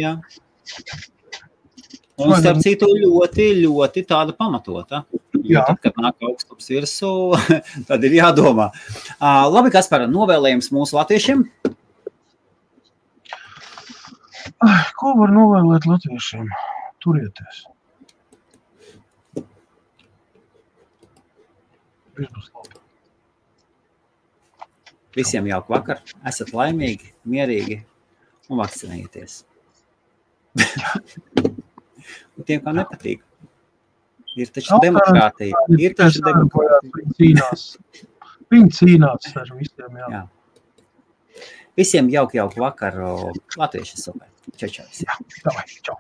Jā. Un starp citu ļoti tāda pamatota. Jo tad, kad nāk augstums virsū, tad ir jādomā. Labi, Kaspar, novēlējums mūsu latviešiem? Ko var novēlēt latviešiem? Turieties. Viss būs labi. Visiem jauku vakar, esat laimīgi, mierīgi un vakcinējieties. Un tiem, kā nepatīk. Ir taču demokrātija. Viņi cīnās ar visiem, jā. Visiem jauku vakaru. Latvieši super. Čau. Jā, davai, čau.